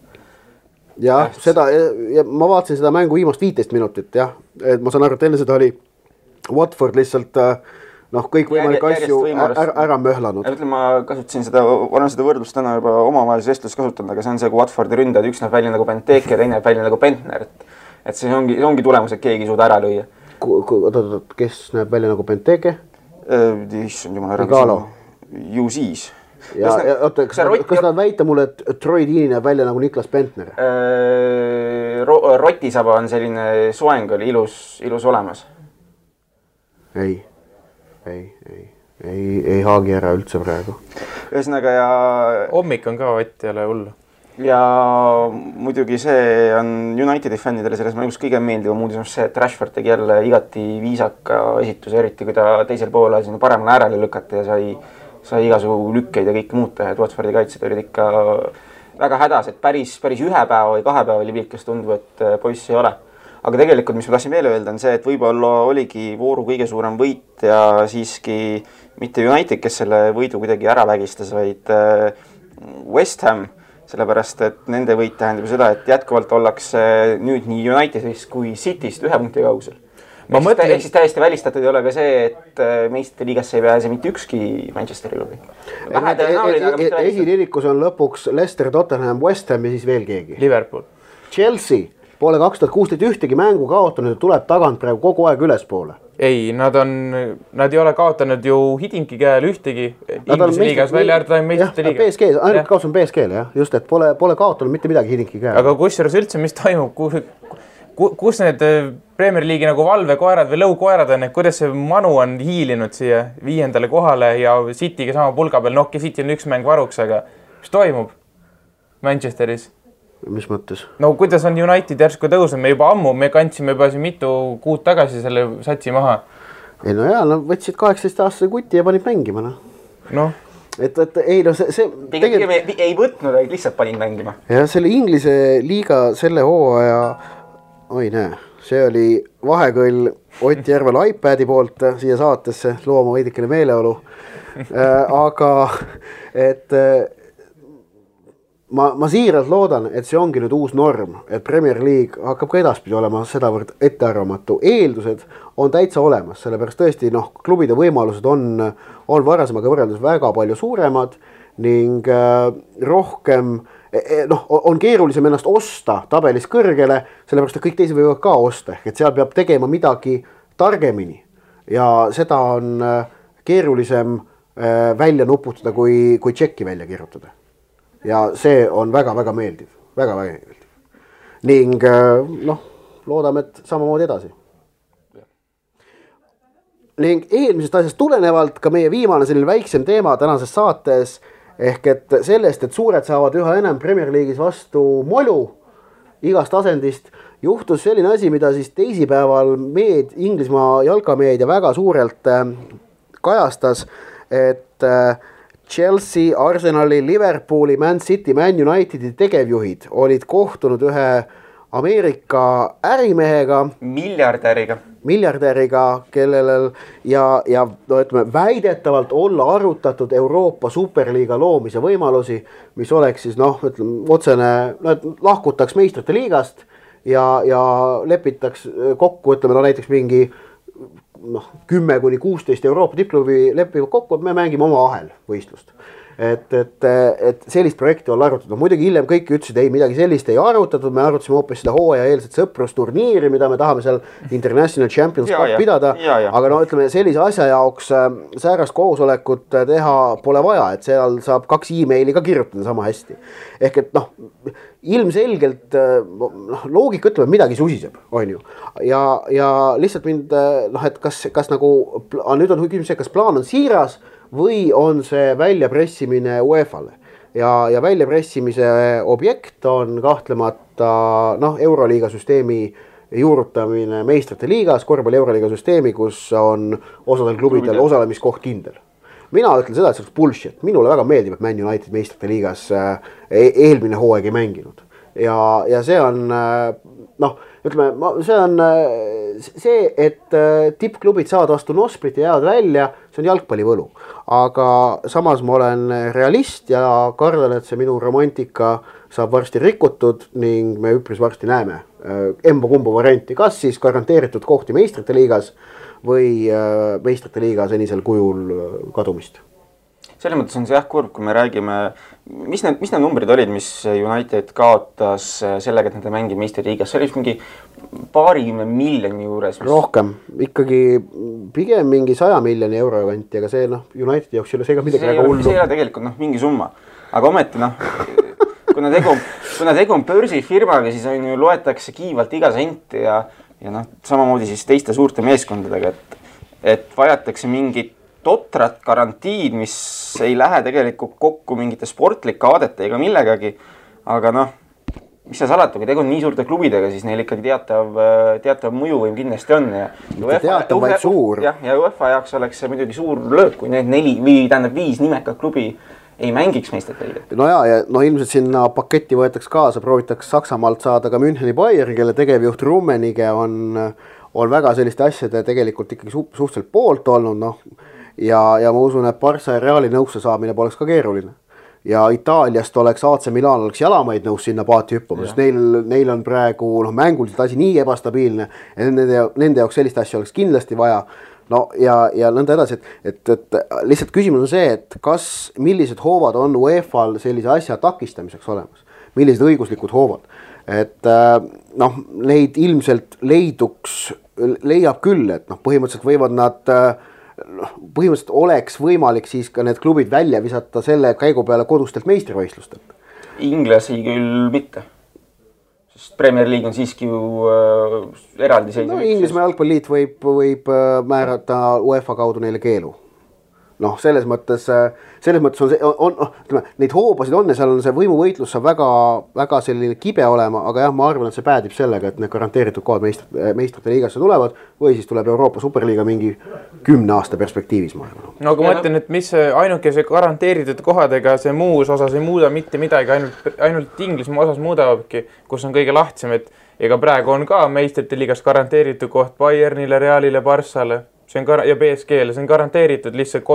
Ja ma vaatasin seda mängu viimast 15 minutit, jah. Et ma saan aru, et enne seda oli Watford lihtsalt kõik võimalik asju ära möhlanud. Ma kasutasin seda võrdlust täna juba omavahelise vestlust kasutanud, aga see on see, kui Watfordi ründajad üks näeb välja nagu Benteke ja teine näeb välja nagu Bentner. Et see ongi tulemus, et keegi ei suuda ära lüüa. Kes näeb välja nagu Benteke? Issand jumal ära. Ju siis. Kas nad väita mulle, et Troy Deeney näeb välja nagu Niklas Bentner? Rotisaba on selline soeng oli ilus olemas. Ei haagi ära üldse praegu. Ühesõnaga ja... Hommik on ka Ott ei ole hullu. Ja muidugi see on Unitedi fännidele selles mängus kõige meeldivam uudis on see, et Rashford tegi jälle igati viisaka esituse, eriti kui ta teisel poole sinna paremale äärele lükati ja sai igasugu lükkeid ja kõik muud teha, et Watfordi kaitsed olid ikka väga hädas, et päris 1 päeva või 2 päeva oli pilk, kes tundub, et poiss ei ole. Aga tegelikult, mis ma tahtsin veel öelda, on see, et võib-olla oligi vooru kõige suurem võit ja siiski mitte United, kes selle võidu kuidagi ära vägistas, vaid West Ham, sellepärast, et nende võit tähendab seda, et jätkuvalt ollakse nüüd nii Unitedist kui Cityst 1 punkti kaugusel. Ehk siis täiesti välistatud ei ole ka see, et meistrite liigasse ei pääse mitte ükski Manchesteri klubi. Esiririkus on lõpuks Leicester, Tottenham, West Ham ja siis veel keegi. Liverpool. Chelsea poole 2016 ühtegi mängu kaotanud ja tuleb tagant praegu kogu aeg ülespoole. Ei, nad ei ole kaotanud ju Hidinki käel ühtegi Inglise liigas välja äärtada meistrite liiga. PSG, ainult kaotus on PSG-le, jah. Just, et pole kaotanud mitte midagi Hidinki käel. Aga kusjuures üldse, mis toimub, kus need Premier League'i nagu valvekoerad või lõukoerad on, et kuidas see Manu on hiilinud siia 5. kohale ja City'ga sama pulga peal, City on 1 mäng varuks, aga mis toimub Manchesteris? Mis mõttes? No kuidas on United järsku tõusnud, me kandsime juba siin mitu kuud tagasi selle satsi maha. Ei no jaa, võtsid 18-aastase kuti ja panid mängima. Et ei no see ei võtnud, vaid lihtsalt panid mängima. Ja selle Inglise liiga selle hooaja, see oli vahekõll Ott Järvel iPadi poolt siia saatesse, looma veidikene meeleolu. Aga et ma siiralt loodan, et see ongi nüüd uus norm, et Premier League hakkab ka edaspidi olema sedavõrd ettearvamatu. Eeldused on täitsa olemas, sellepärast tõesti klubide võimalused on varasemaga võrreldes väga palju suuremad ning rohkem on keerulisem ennast osta tabelis kõrgele, sellepärast et kõik teised võivad ka osta, et seal peab tegema midagi targemini ja seda on keerulisem välja nuputada kui tšekki välja kirjutada. Ja see on väga-väga meeldiv. Väga-väga meeldiv. Ning loodame, et samamoodi edasi. ning eelmisest asjast tulenevalt ka meie viimane selline väiksem teema tänases saates ehk et sellest, et suured saavad üha enam Premier League'is vastu molu igast asendist, juhtus selline asi, mida siis teisipäeval Inglismaa jalkameedia väga suurelt kajastas, et Chelsea, Arsenali, Liverpooli, Man City, Man Unitedi tegevjuhid olid kohtunud ühe Ameerika ärimehega, miljardäriga, kellel ja no ütleme, väidetavalt olla arutatud Euroopa Superliiga loomise võimalusi, mis oleks siis ütleme, otsene, lahkutaks meistrite liigast ja lepitaks kokku, ütleme, näiteks mingi 10-16 Euroopa tippklubi lepivad kokku, et me mängime oma ahel võistlust. Et sellist projekti on arutatud. Muidugi hiljem kõik ütlesid, ei, midagi sellist ei arutatud, me arutasime hoopis seda hooaja eelset sõprusturniiri, mida me tahame seal International Champions Cup pidada, aga ütleme, sellise asja jaoks säärast koosolekut teha pole vaja, et seal saab 2 emaili ka kirjutada sama hästi. Ehk et ilmselgelt loogika ütleb, midagi susiseb, on ju. Ja lihtsalt mind, et kas nagu, nüüd on küsimus, kas plaan on siiras või on see väljapressimine UEFA-le ja väljapressimise objekt on kahtlemata Euroliiga süsteemi juurutamine meistrite liigas, korvpalli Euroliiga süsteemi, kus on osadel klubidel osalemiskoht kindel. Mina ütlen seda, et see oleks bullshit. Minule väga meeldib, et Man United meistrite liigas eelmine hooaeg ei mänginud. Ja see on, ütleme, see on see, et tippklubid saavad vastu Nosprit ja jäävad välja, see on jalgpallivõlu. Aga samas ma olen realist ja kardan, et see minu romantika saab varsti rikutud ning me üpris varsti näeme emba-kumba varianti, kas siis garanteeritud kohti meistrite liigas või meistrite liiga senisel kujul kadumist. Selles mõttes on see kurb, kui me räägime, mis need numbrid olid, mis United kaotas sellega, et nad mängib meistriliigas, see oli mingi paarikümne miljoni juures. Rohkem, ikkagi pigem mingi 100 miljoni euro kanti, aga see Unitedi jaoks ei ole see ka midagi väga hullu. See ei ole tegelikult mingi summa, aga ometi kuna tegu on börsifirmaga, siis on ju loetakse kiivalt iga sent ja samamoodi siis teiste suurte meeskondadega, et vajatakse mingit totrat garantiid, mis ei lähe tegelikult kokku mingite sportlike aadete ega millegagi, aga mis see salata, kui tegu on nii suurte klubidega, siis neil ikkagi teatav mõjuvõim kindlasti on. Teatav vaid suur. Ja UEFA jaoks oleks see muidugi suur löök, kui need 5 nimekad klubi ei mängiks meistrite liigat. Ja ilmselt sinna paketti võetaks kaasa, proovitaks Saksamaalt saada ka Müncheni Bayern, kelle tegevjuht Rummenigge on väga selliste asjade tegelikult ikkagi suhteliselt poolt olnud, ja ma usun, et Barca ja Reali nõusse saamine poleks ka keeruline. Ja Itaaliast oleks AC Milan oleks jalamaid nõus sinna paati hüppama, sest neil on praegu mänguliselt asi nii ebastabiilne, et nende jaoks sellist asja oleks kindlasti vaja. Ja nõnda edasi, et lihtsalt küsimus on see, et millised hoovad on UEFA-l sellise asja takistamiseks olemas, millised õiguslikud hoovad. Et neid ilmselt leiab küll, et põhimõtteliselt võivad nad põhimõtteliselt oleks võimalik siis ka need klubid välja visata selle käigu peale kodustelt meistrivõistlustelt. Inglasi küll mitte. Sest Premier League on siiski ju eraldi seisev. Inglismaa jalgpalliliit võib määrata UEFA kaudu neile keelu. Selles mõttes on neid hoobasid on ja seal on see võimuvõitlus saab väga selline kibe olema, aga jah, ma arvan, et see päädib sellega, et need garanteeritud kohad meistrite liigasse tulevad või siis tuleb Euroopa Superliiga mingi 10 aasta perspektiivis, ma arvan. Aga ma mõtlen, et mis ainuke see garanteeritud kohadega see muus osas ei muuda mitte midagi, ainult Inglismaa osas muudavadki, kus on kõige lahtsem, et ega praegu on ka meistrite liigas garanteeritud koht Bayernile, Realile, Barssale ja PSG-le, see on garanteeritud lihtsalt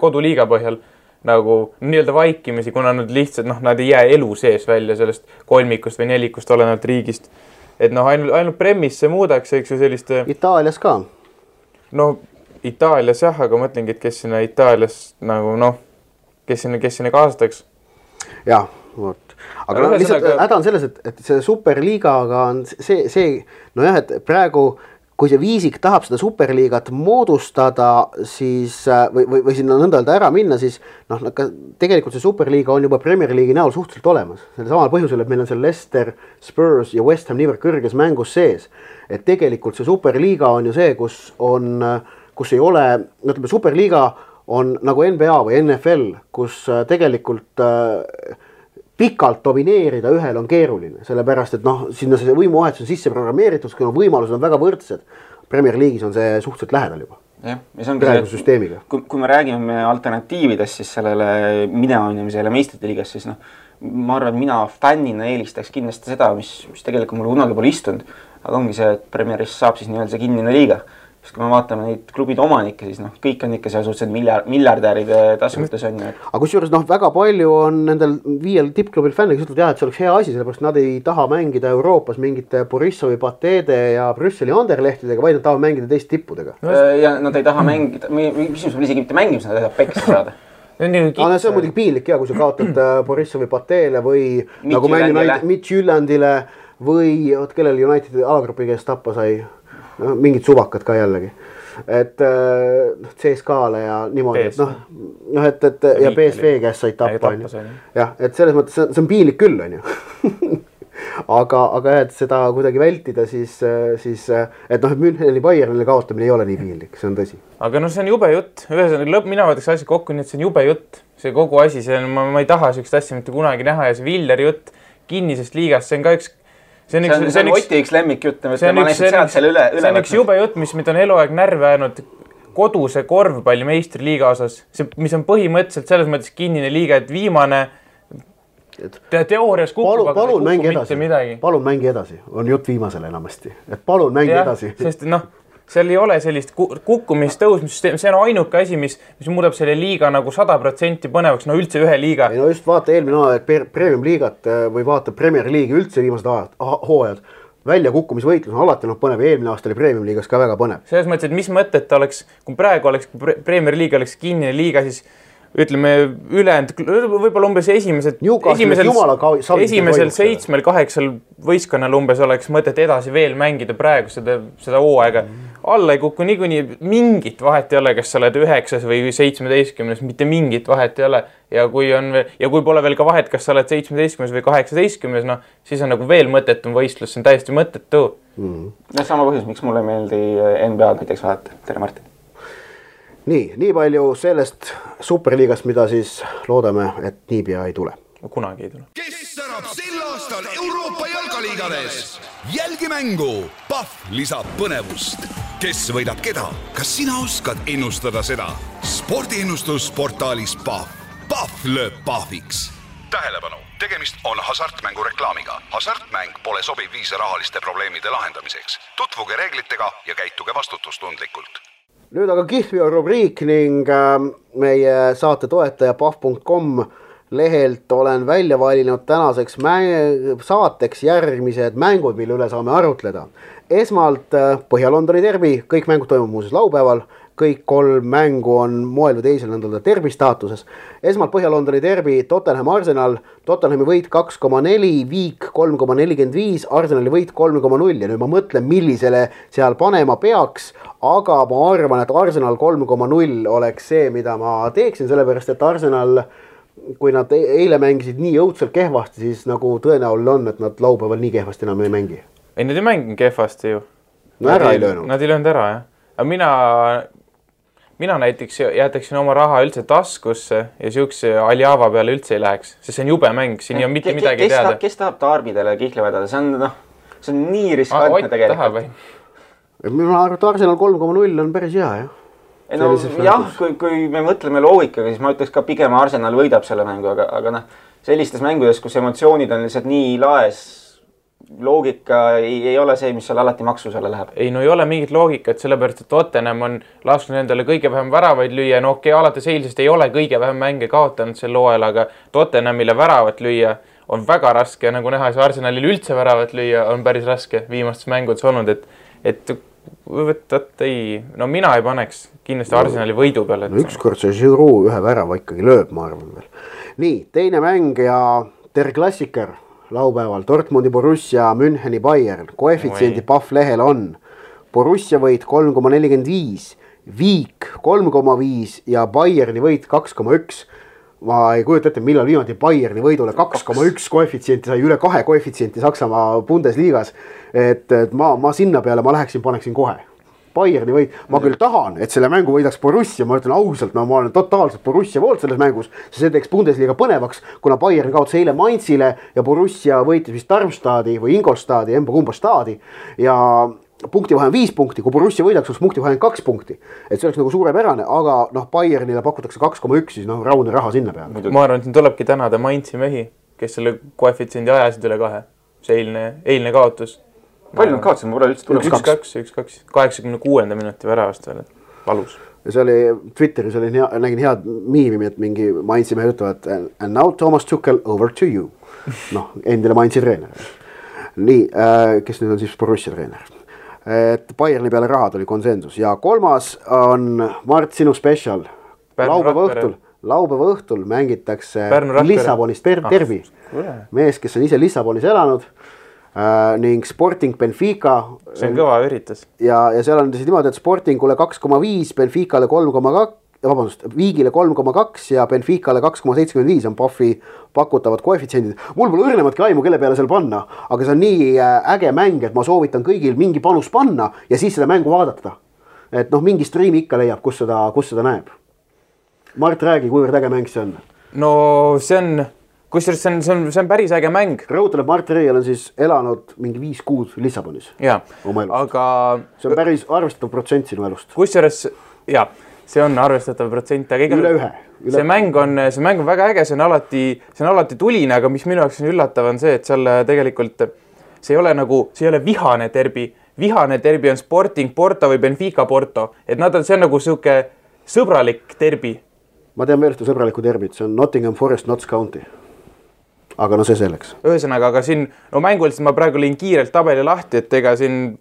koduliiga põhjal nagu nii-öelda vaikimisi, kuna nad lihtsalt, nad ei jää elu sees välja sellest kolmikust või nelikust olenevalt riigist. Et ainult premis see muudaks, eks ju selliste... Itaalias ka? Itaalias jah, aga mõtlengi, et kes sinna Itaalias kes sinna kaasataks. Jah, vot. Aga lihtsalt häda on selles, et see superliigaga on et praegu kui see viisik tahab seda superliigat moodustada, siis või sinna nõnda öelda ära minna, siis tegelikult see superliiga on juba Premier League'i näol suhteliselt olemas. Selle samal põhjusel, et meil on seal Leicester, Spurs ja West Ham niivõrd kõrges mängus sees. Et tegelikult see superliiga on ju see, kus kus ei ole, ütleme Superliiga on nagu NBA või NFL, kus tegelikult pikalt domineerida ühel on keeruline, sellepärast et noh, sinna see võimuvahetus on sisse programmeeritud, kuna võimalused on väga võrdsed. Premier League'is on see suhteliselt lähedal juba. Jah, ja see ongi süsteemiga. Kui me räägime alternatiividest siis sellele mineonimisele meistrite liigas, siis noh, ma arvan, et mina fännina eelistaks kindlasti seda, mis tegelikult mul kunagi pole istunud, aga ongi see, et Premieris saab siis nii-öelda see kinnine liiga. Sest kui me vaatame neid klubide omanikke, siis noh, kõik on ikka seal suhteliselt miljardäride tasumutes on ju. Aga kusjuures noh, väga palju on nendel 5 tippklubil fänne, kes ütlevad, et see oleks hea asi, sellepärast nad ei taha mängida Euroopas mingite Borissovi, Patede ja Brüsseli Anderlehtidega, vaid nad tahavad mängida teist tippudega. Ja nad ei taha mängida, mis on isegi mitte mängimus, nad ei taha peksa saada. See on muidugi piinlik ja kui sa kaotad Borissovi, Patele või nagu Mitch Jyllandile või kellel Unitedi alagrupi käest tappa sai. No, mingid suvakad ka jällegi, et CSKA-le ja niimoodi, et ja PSV käest said tappa, jah, et selles mõttes see on piinlik küll, on ju. aga et seda kuidagi vältida, siis et noh, et Müncheni Bayernile kaotamine ei ole nii piinlik, see on tõsi. Aga no see on jube jutt, ühesõnaga mina võtaks asja kokku, nii et see on jube jutt, see kogu asi, ma ei taha sellist asja mitte kunagi näha ja see Villeri jutt kinnisest liigast, see on ka üks see on Oti üks lemmik jutt, ma lihtsalt sealt selle üle see on üks jube jutt, mis on eluaeg närve ajanud koduse korvpalli meistriliiga osas, mis on põhimõtteliselt selles mõttes kinnine liiga, et viimane teoorias kukub, aga palun kukub mitte midagi. Palun mängi edasi, on jutt viimasele enamasti, et palun mängi edasi. Sest noh, seal ei ole sellist kukkumist tõusmissüsteemi, see on ainuke asi, mis muudab selle liiga nagu 100% põnevaks, no üldse ühe liiga. Ei no just vaata eelmine aeg Premium liigat või vaata Premier League'i üldse viimased hooajad. Välja kukkumisvõitlus on alati põnev, eelmine aasta oli Premium liigas ka väga põnev. Selles mõttes, et mis mõtet oleks, kui praegu oleks Premier League oleks kinnine liiga, siis ütleme ülejäänud, võib-olla umbes esimesel 7-8 võistkonnal umbes oleks mõtet edasi veel mängida praegu seda hooaega. Alla ei kuku niikuinii mingit vahet ei ole, kas sa oled 9 või 17, mitte mingit vahet ei ole. Ja kui pole veel ka vahet, kas sa oled 17 või 18, no, siis on nagu veel mõttetum võistlus, see on täiesti mõttetu. No sama põhjus, miks mulle meeldi NBA näiteks vaadata. Tere Martin. Nii palju sellest Superliigast, mida siis loodame, et niipea ei tule. Kunagi ei tule. Kes särab sel aastal Euroopa jalgaliigades? Jälgi mängu. Pahv lisab põnevust. Kes võidab keda? Kas sina oskad ennustada seda? Spordiennustusportaalis Pahv. Pahv lööb pahviks. Tähelepanu, tegemist on hasartmängu reklaamiga. Hasartmäng pole sobiv viis rahaliste probleemide lahendamiseks. Tutvuge reeglitega ja käituge vastutustundlikult. Nüüd aga Kihlveo rubriik ning meie saate toetaja pahv.com lehelt olen välja valinud tänaseks saateks järgmised mängud, mille üle saame arutleda. Esmalt Põhja-Londoni derbi, kõik mängud toimub muuseas laupäeval, kõik 3 mängu on moel või teisel nendel derbi staatuses. Esmalt Põhja-Londoni derbi, Tottenham Arsenal, Tottenhami võit 2,4, Viik 3,45, Arsenali võit 3,0 ja nüüd ma mõtlen, millisele seal panema peaks, aga ma arvan, et Arsenal 3,0 oleks see, mida ma teeksin, sellepärast et Arsenal, kui nad eile mängisid nii õudselt kehvasti, siis nagu tõenäoline on, et nad laupäeval nii kehvasti enam ei mängi. Ei, nad ei mängi kehvasti ju. No ära ei löönud. Nad ei löönud ära, jah. Aga mina näiteks jätaksin oma raha üldse taskusse ja siukse Aljava peale üldse ei läheks, sest see on jube mäng, siin ei ole mitte midagi teada. Kes tahab Tarbidele Kihla vedada? See on nii riskantne tegelikult. Mina arvan, et Arsenal 3,0 on päris hea, jah. No, jah, kui me mõtleme loogikaga, siis ma ütleks ka pigem Arsenal võidab selle mängu, aga sellistes mängudes, kus emotsioonid on lihtsalt nii laes, loogika ei ole see, mis seal alati maksusele läheb. Ei, no ei ole mingit loogikat, sellepärast, et Tottenham on lasknud endale kõige vähem väravaid lüüa. No okei, alates eilsest ei ole kõige vähem mänge kaotanud sel hooajal, aga Tottenhamile väravat lüüa on väga raske ja nagu näha, see Arsenalil üldse väravat lüüa on päris raske viimastes mängudes olnud, et no mina ei paneks kindlasti Arsenali võidu peale. No ükskord see Giroud ühe värava ikkagi lööb, ma arvan veel. Nii, teine mäng ja Der Klassiker laupäeval. Dortmundi Borussia, Müncheni Bayern. Koefitsiendi Pahv lehel on Borussia võit 3,45, Viik 3,5 ja Bayerni võit 2,1. Ma ei kujuta ette, millal viimati Bayerni võidule 2,1 koefitsienti sai üle 2 koefitsienti Saksamaa Bundesliigas. Et ma sinna peale ma läheksin, paneksin kohe. Bayerni võit. Ma küll tahan, et selle mängu võidaks Borussia, ma ütlen ausalt, ma olen totaalselt Borussia poolt selles mängus, see teeks Bundesliga põnevaks, kuna Bayern kaotas eile Mainzile ja Borussia võitis vist Darmstadi või Ingolstadi, emba-kumba staadi ja punktivahe on 5 punkti, kui Borussia võidaks, oleks punktivahe 2 punkti. Et see oleks nagu suurepärane, aga Bayernile pakutakse 2,1, siis raudne raha sinna peale. Ma arvan, et siin tulebki tänada Mainzi mehi, kes selle koefitsiendi ajasid üle 2. See eilne kaotus. Palju nad kaotasid, ma pole üldse tuleb 1-2, 86. minuti väravast veel, valus. Ja see oli, Twitteris nägin head miimi, et mingi Mainzi mehed ütlevad and now Thomas Tuchel over to you. Endile Mainzi treener. Nii, kes nüüd on siis Borussia treener. Et Bayerni peale raha tuli konsensus ja 3. on Mart sinu special. Laupäeva õhtul mängitakse Lissabonist Derby. Mees, kes on ise Lissabonis elanud ning Sporting Benfica. See on kõva üritus. Ja seal on niimoodi, et Sportingule 2,5, Benficale 3,2, Viigile 3,2 ja Benficale 2,75 on Paffi pakutavad koefitsiendid. Mul pole õrnematki aimu, kelle peale seal panna, aga see on nii äge mäng, et ma soovitan kõigil mingi panus panna ja siis seda mängu vaadata. Et mingi striimi ikka leiab, kus seda näeb. Mart, räägi, kuivõrd äge mäng see on? No see on, kusjuures see on päris äge mäng. Rõhutab, Mart Reial on siis elanud mingi 5 kuud Lissabonis. Jaa, aga see on päris arvestatav protsent sinu elust. Kusjuures, jaa, see on arvestatav protsent, aga üle ühe. See mäng on väga äge, see on alati tuline, aga mis minu jaoks on üllatav on see, et seal tegelikult see ei ole vihane derbi. Vihane derbi on Sporting Porto või Benfica Porto, et see on nagu siuke sõbralik derbi. Ma tean veel ühte sõbralikku derbit, see on Nottingham Forest Notts County. Aga see selleks. Ühesõnaga, aga siin mänguliselt ma praegu lõin kiirelt tabeli lahti, et ega siin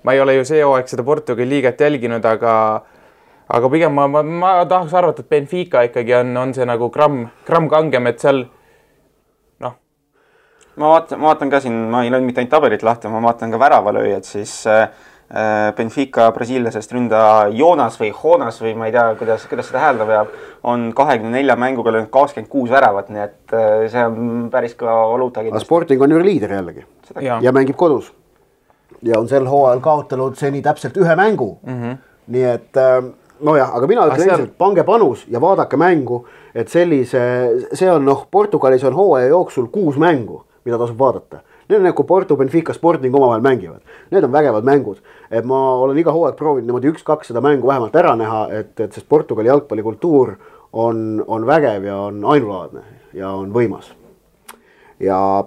ma ei ole ju see hooaeg seda Portugali liigat jälginud, aga pigem ma tahaks arvata, et Benfica ikkagi on see nagu gramm kangem, et seal Ma vaatan ka siin, ma ei löönud mitte ainult tabelit lahti, ma vaatan ka väravalööjad, siis Benfica brasiilasest ründa Jonas või ma ei tea, kuidas seda häälda peab, on 24 mänguga löönud 26 väravat, nii et see on päris ka valuuta kindlasti. Sporting on ju liider jällegi ja mängib kodus. Ja on sel hooajal kaotanud seni täpselt 1 mängu. Nii et aga mina ütlen endiselt, pange panus ja vaadake mängu, et see on Portugalis on hooaja jooksul 6 mängu, mida tasub vaadata. Need on nagu Porto, Benfica, Sporting omavahel mängivad. Need on vägevad mängud. Et ma olen iga hooaeg proovinud niimoodi 1-2 seda mängu vähemalt ära näha, et sest Portugali jalgpallikultuur on vägev ja on ainulaadne ja on võimas. Ja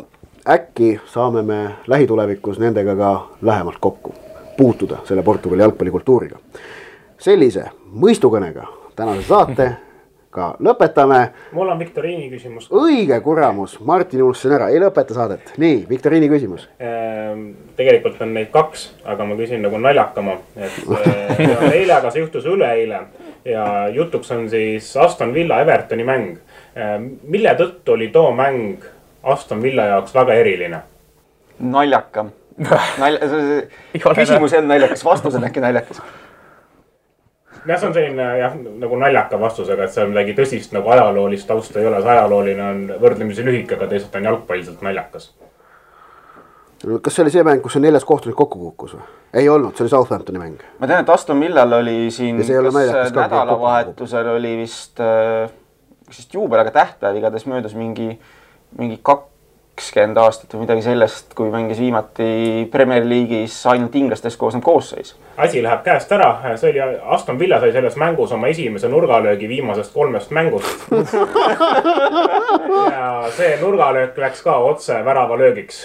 äkki saame me lähitulevikus nendega ka lähemalt kokku puutuda selle Portugali jalgpallikultuuriga. Sellise mõistukõnega tänase saate ka lõpetame. Mul on viktoriini küsimus. Õige kuramus, Martin unustasin ära, ei lõpeta saadet. Nii, viktoriini küsimus. Tegelikult on neid 2, aga ma küsin nagu naljakama. Eile, aga see juhtus üleeile ja jutuks on siis Aston Villa Evertoni mäng. Mille tõttu oli too mäng Aston Villa jaoks väga eriline? Naljakam. Küsimus on naljakas, vastus on äkki naljakas. See on selline nagu naljaka vastusega, et see on midagi tõsist nagu ajaloolist tausta ei ole. See ajalooline on võrdlemisi lühike, aga teisalt on jalgpalliselt naljakas. Kas see oli see mäng, kus on 4 kohtunik kokku kukkus või? Ei olnud, see oli Southamptoni mäng. Ma tean, et Aston Villal oli siin nädalavahetusel oli vist juubel, aga tähtpäev igatahes möödus mingi 20 aastat või midagi sellest, kui mängis viimati Premier League'is ainult inglastest koosnev koosseis. Asi läheb käest ära. See oli Aston Villa sai selles mängus oma esimese nurgalöögi viimasest 3 mängust. Ja see nurgalöök läks ka otse väravalöögiks.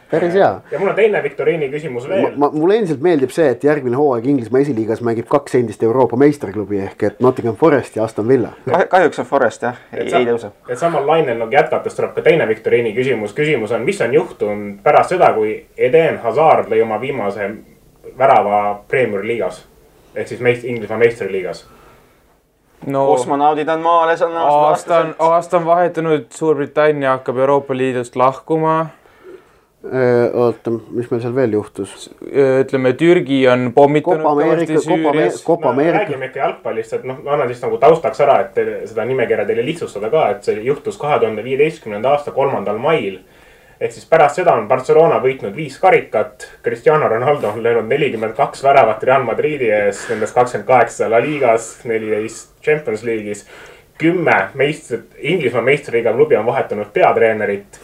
Päris hea. Ja mul on teine viktoriini küsimus veel. Mulle endiselt meeldib see, et järgmine hooaeg Inglismaa esiliigas mängib 2 endist Euroopa meistriklubi ehk et Nottingham Forest ja Aston Villa. Kahjuks on Forest, jah. Ei tõuse. Et samal lainel jätkates tuleb ka teine viktoriini küsimus. Küsimus on, mis on juhtunud pärast seda, kui Eden Hazard lõi oma viimase värava Premier Liigas ehk siis Inglismaa meistriliigas? Kosmonaudid on maales. Aasta on vahetunud, Suurbritannia hakkab Euroopa Liidust lahkuma. Oota, mis meil seal veel juhtus? Ütleme, Türgi on pommitanud kõvasti Süürias. Räägime ikka jalgpallist, et ma annan siis nagu taustaks ära, et seda nimekirja teile lihtsustada ka, et see juhtus 2015. aasta 3. mail. ehk siis pärast seda on Barcelona võitnud 5 karikat. Cristiano Ronaldo on löönud 42 väravat Real Madridi ees, nendest 28 La Ligas, 14 Champions League'is. 10 Inglismaa meistriliiga klubi on vahetanud peatreenerit.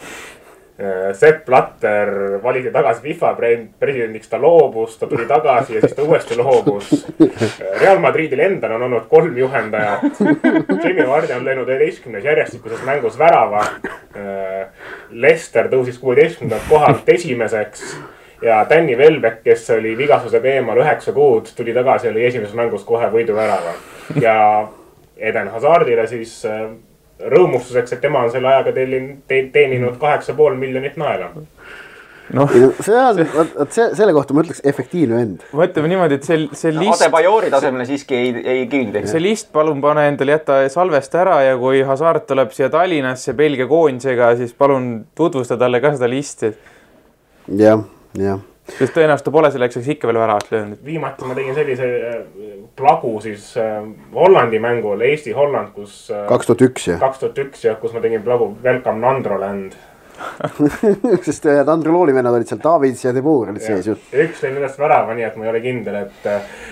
Sepp Blatter valiti tagasi FIFA presidendiks, ta loobus, ta tuli tagasi ja siis ta uuesti loobus. Real Madridil endal on olnud 3 juhendajat. Jamie Vardy on löönud 11 järjestikuses mängus värava. Leicester tõusis 16. kohalt esimeseks ja Danny Welbeck, kes oli vigastusega eemal 9 kuud, tuli tagasi ja oli esimeses mängus kohe võiduvärava. Ja Eden Hazardile siis rõõmustuseks, et tema on selle ajaga teeninud 8,5 miljonit naela. Selle kohta ma ütleks efektiivne vend. Mõtleme niimoodi, et see list... Adebayouri tasemele siiski ei kiildi. See list palun pane endale jätta salvest ära ja kui Hazard tuleb siia Tallinnasse Belgia koondisega, siis palun tutvusta talle ka seda listi. Jah. Sest tõenäoliselt ta pole selleks ikka veel väravat löönud. Viimati ma tegin sellise plagu siis Hollandi mängul, Eesti-Holland, kus 2001, kus ma tegin plagu Welcome Nandroland. Sest Nandrolooli vennad olid seal, Davids ja Debour olid sees ju. Üks lõi millest värava, nii et ma ei ole kindel,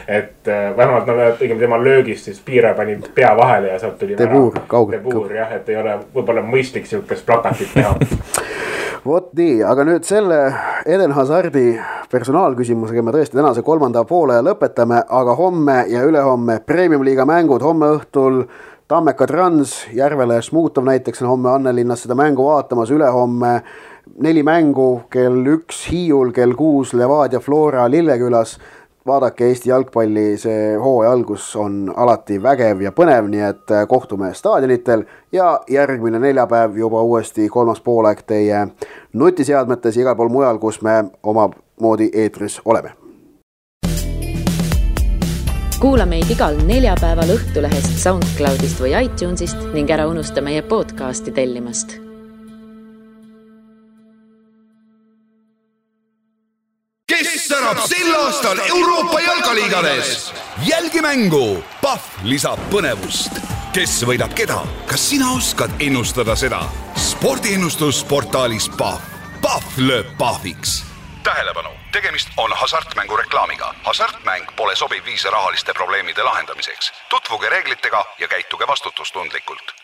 et vähemalt tegime tema löögist, siis Piire pani pea vahele ja sealt tuli Debour, kaugelt. Debour, jah, et ei ole võib-olla mõistlik siukest plakatit teha. Vot nii, aga nüüd selle Eden Hazardi personaalküsimusega me tõesti tänase 3. poole lõpetame, aga homme ja ülehomme Premium-liiga mängud, homme õhtul Tammeka Trans, Järvele Smuutov näiteks on homme Annelinnas seda mängu vaatamas, ülehomme 4 mängu, kell 1 Hiiul, kell 6 Levadia Flora Lillekülas. Vaadake Eesti jalgpalli, see hooaja algus on alati vägev ja põnev, nii et kohtume staadionitel ja järgmine neljapäev juba uuesti 3. poolaeg teie nutiseadmetes igal pool mujal, kus me oma moodi eetris oleme. Kuula meid igal neljapäeval Õhtulehest, SoundCloudist või iTunesist ning ära unusta meie podcasti tellimast. Kes särab sel aastal Euroopa jalkaliigades? Jälgi mängu, Pahv lisab põnevust. Kes võidab keda? Kas sina oskad ennustada seda? Spordiennustusportaalis Pahv. Pahv lööb pahviks. Tähelepanu, tegemist on hasartmängu reklaamiga. Hasartmäng pole sobiv viis rahaliste probleemide lahendamiseks. Tutvuge reeglitega ja käituge vastutustundlikult.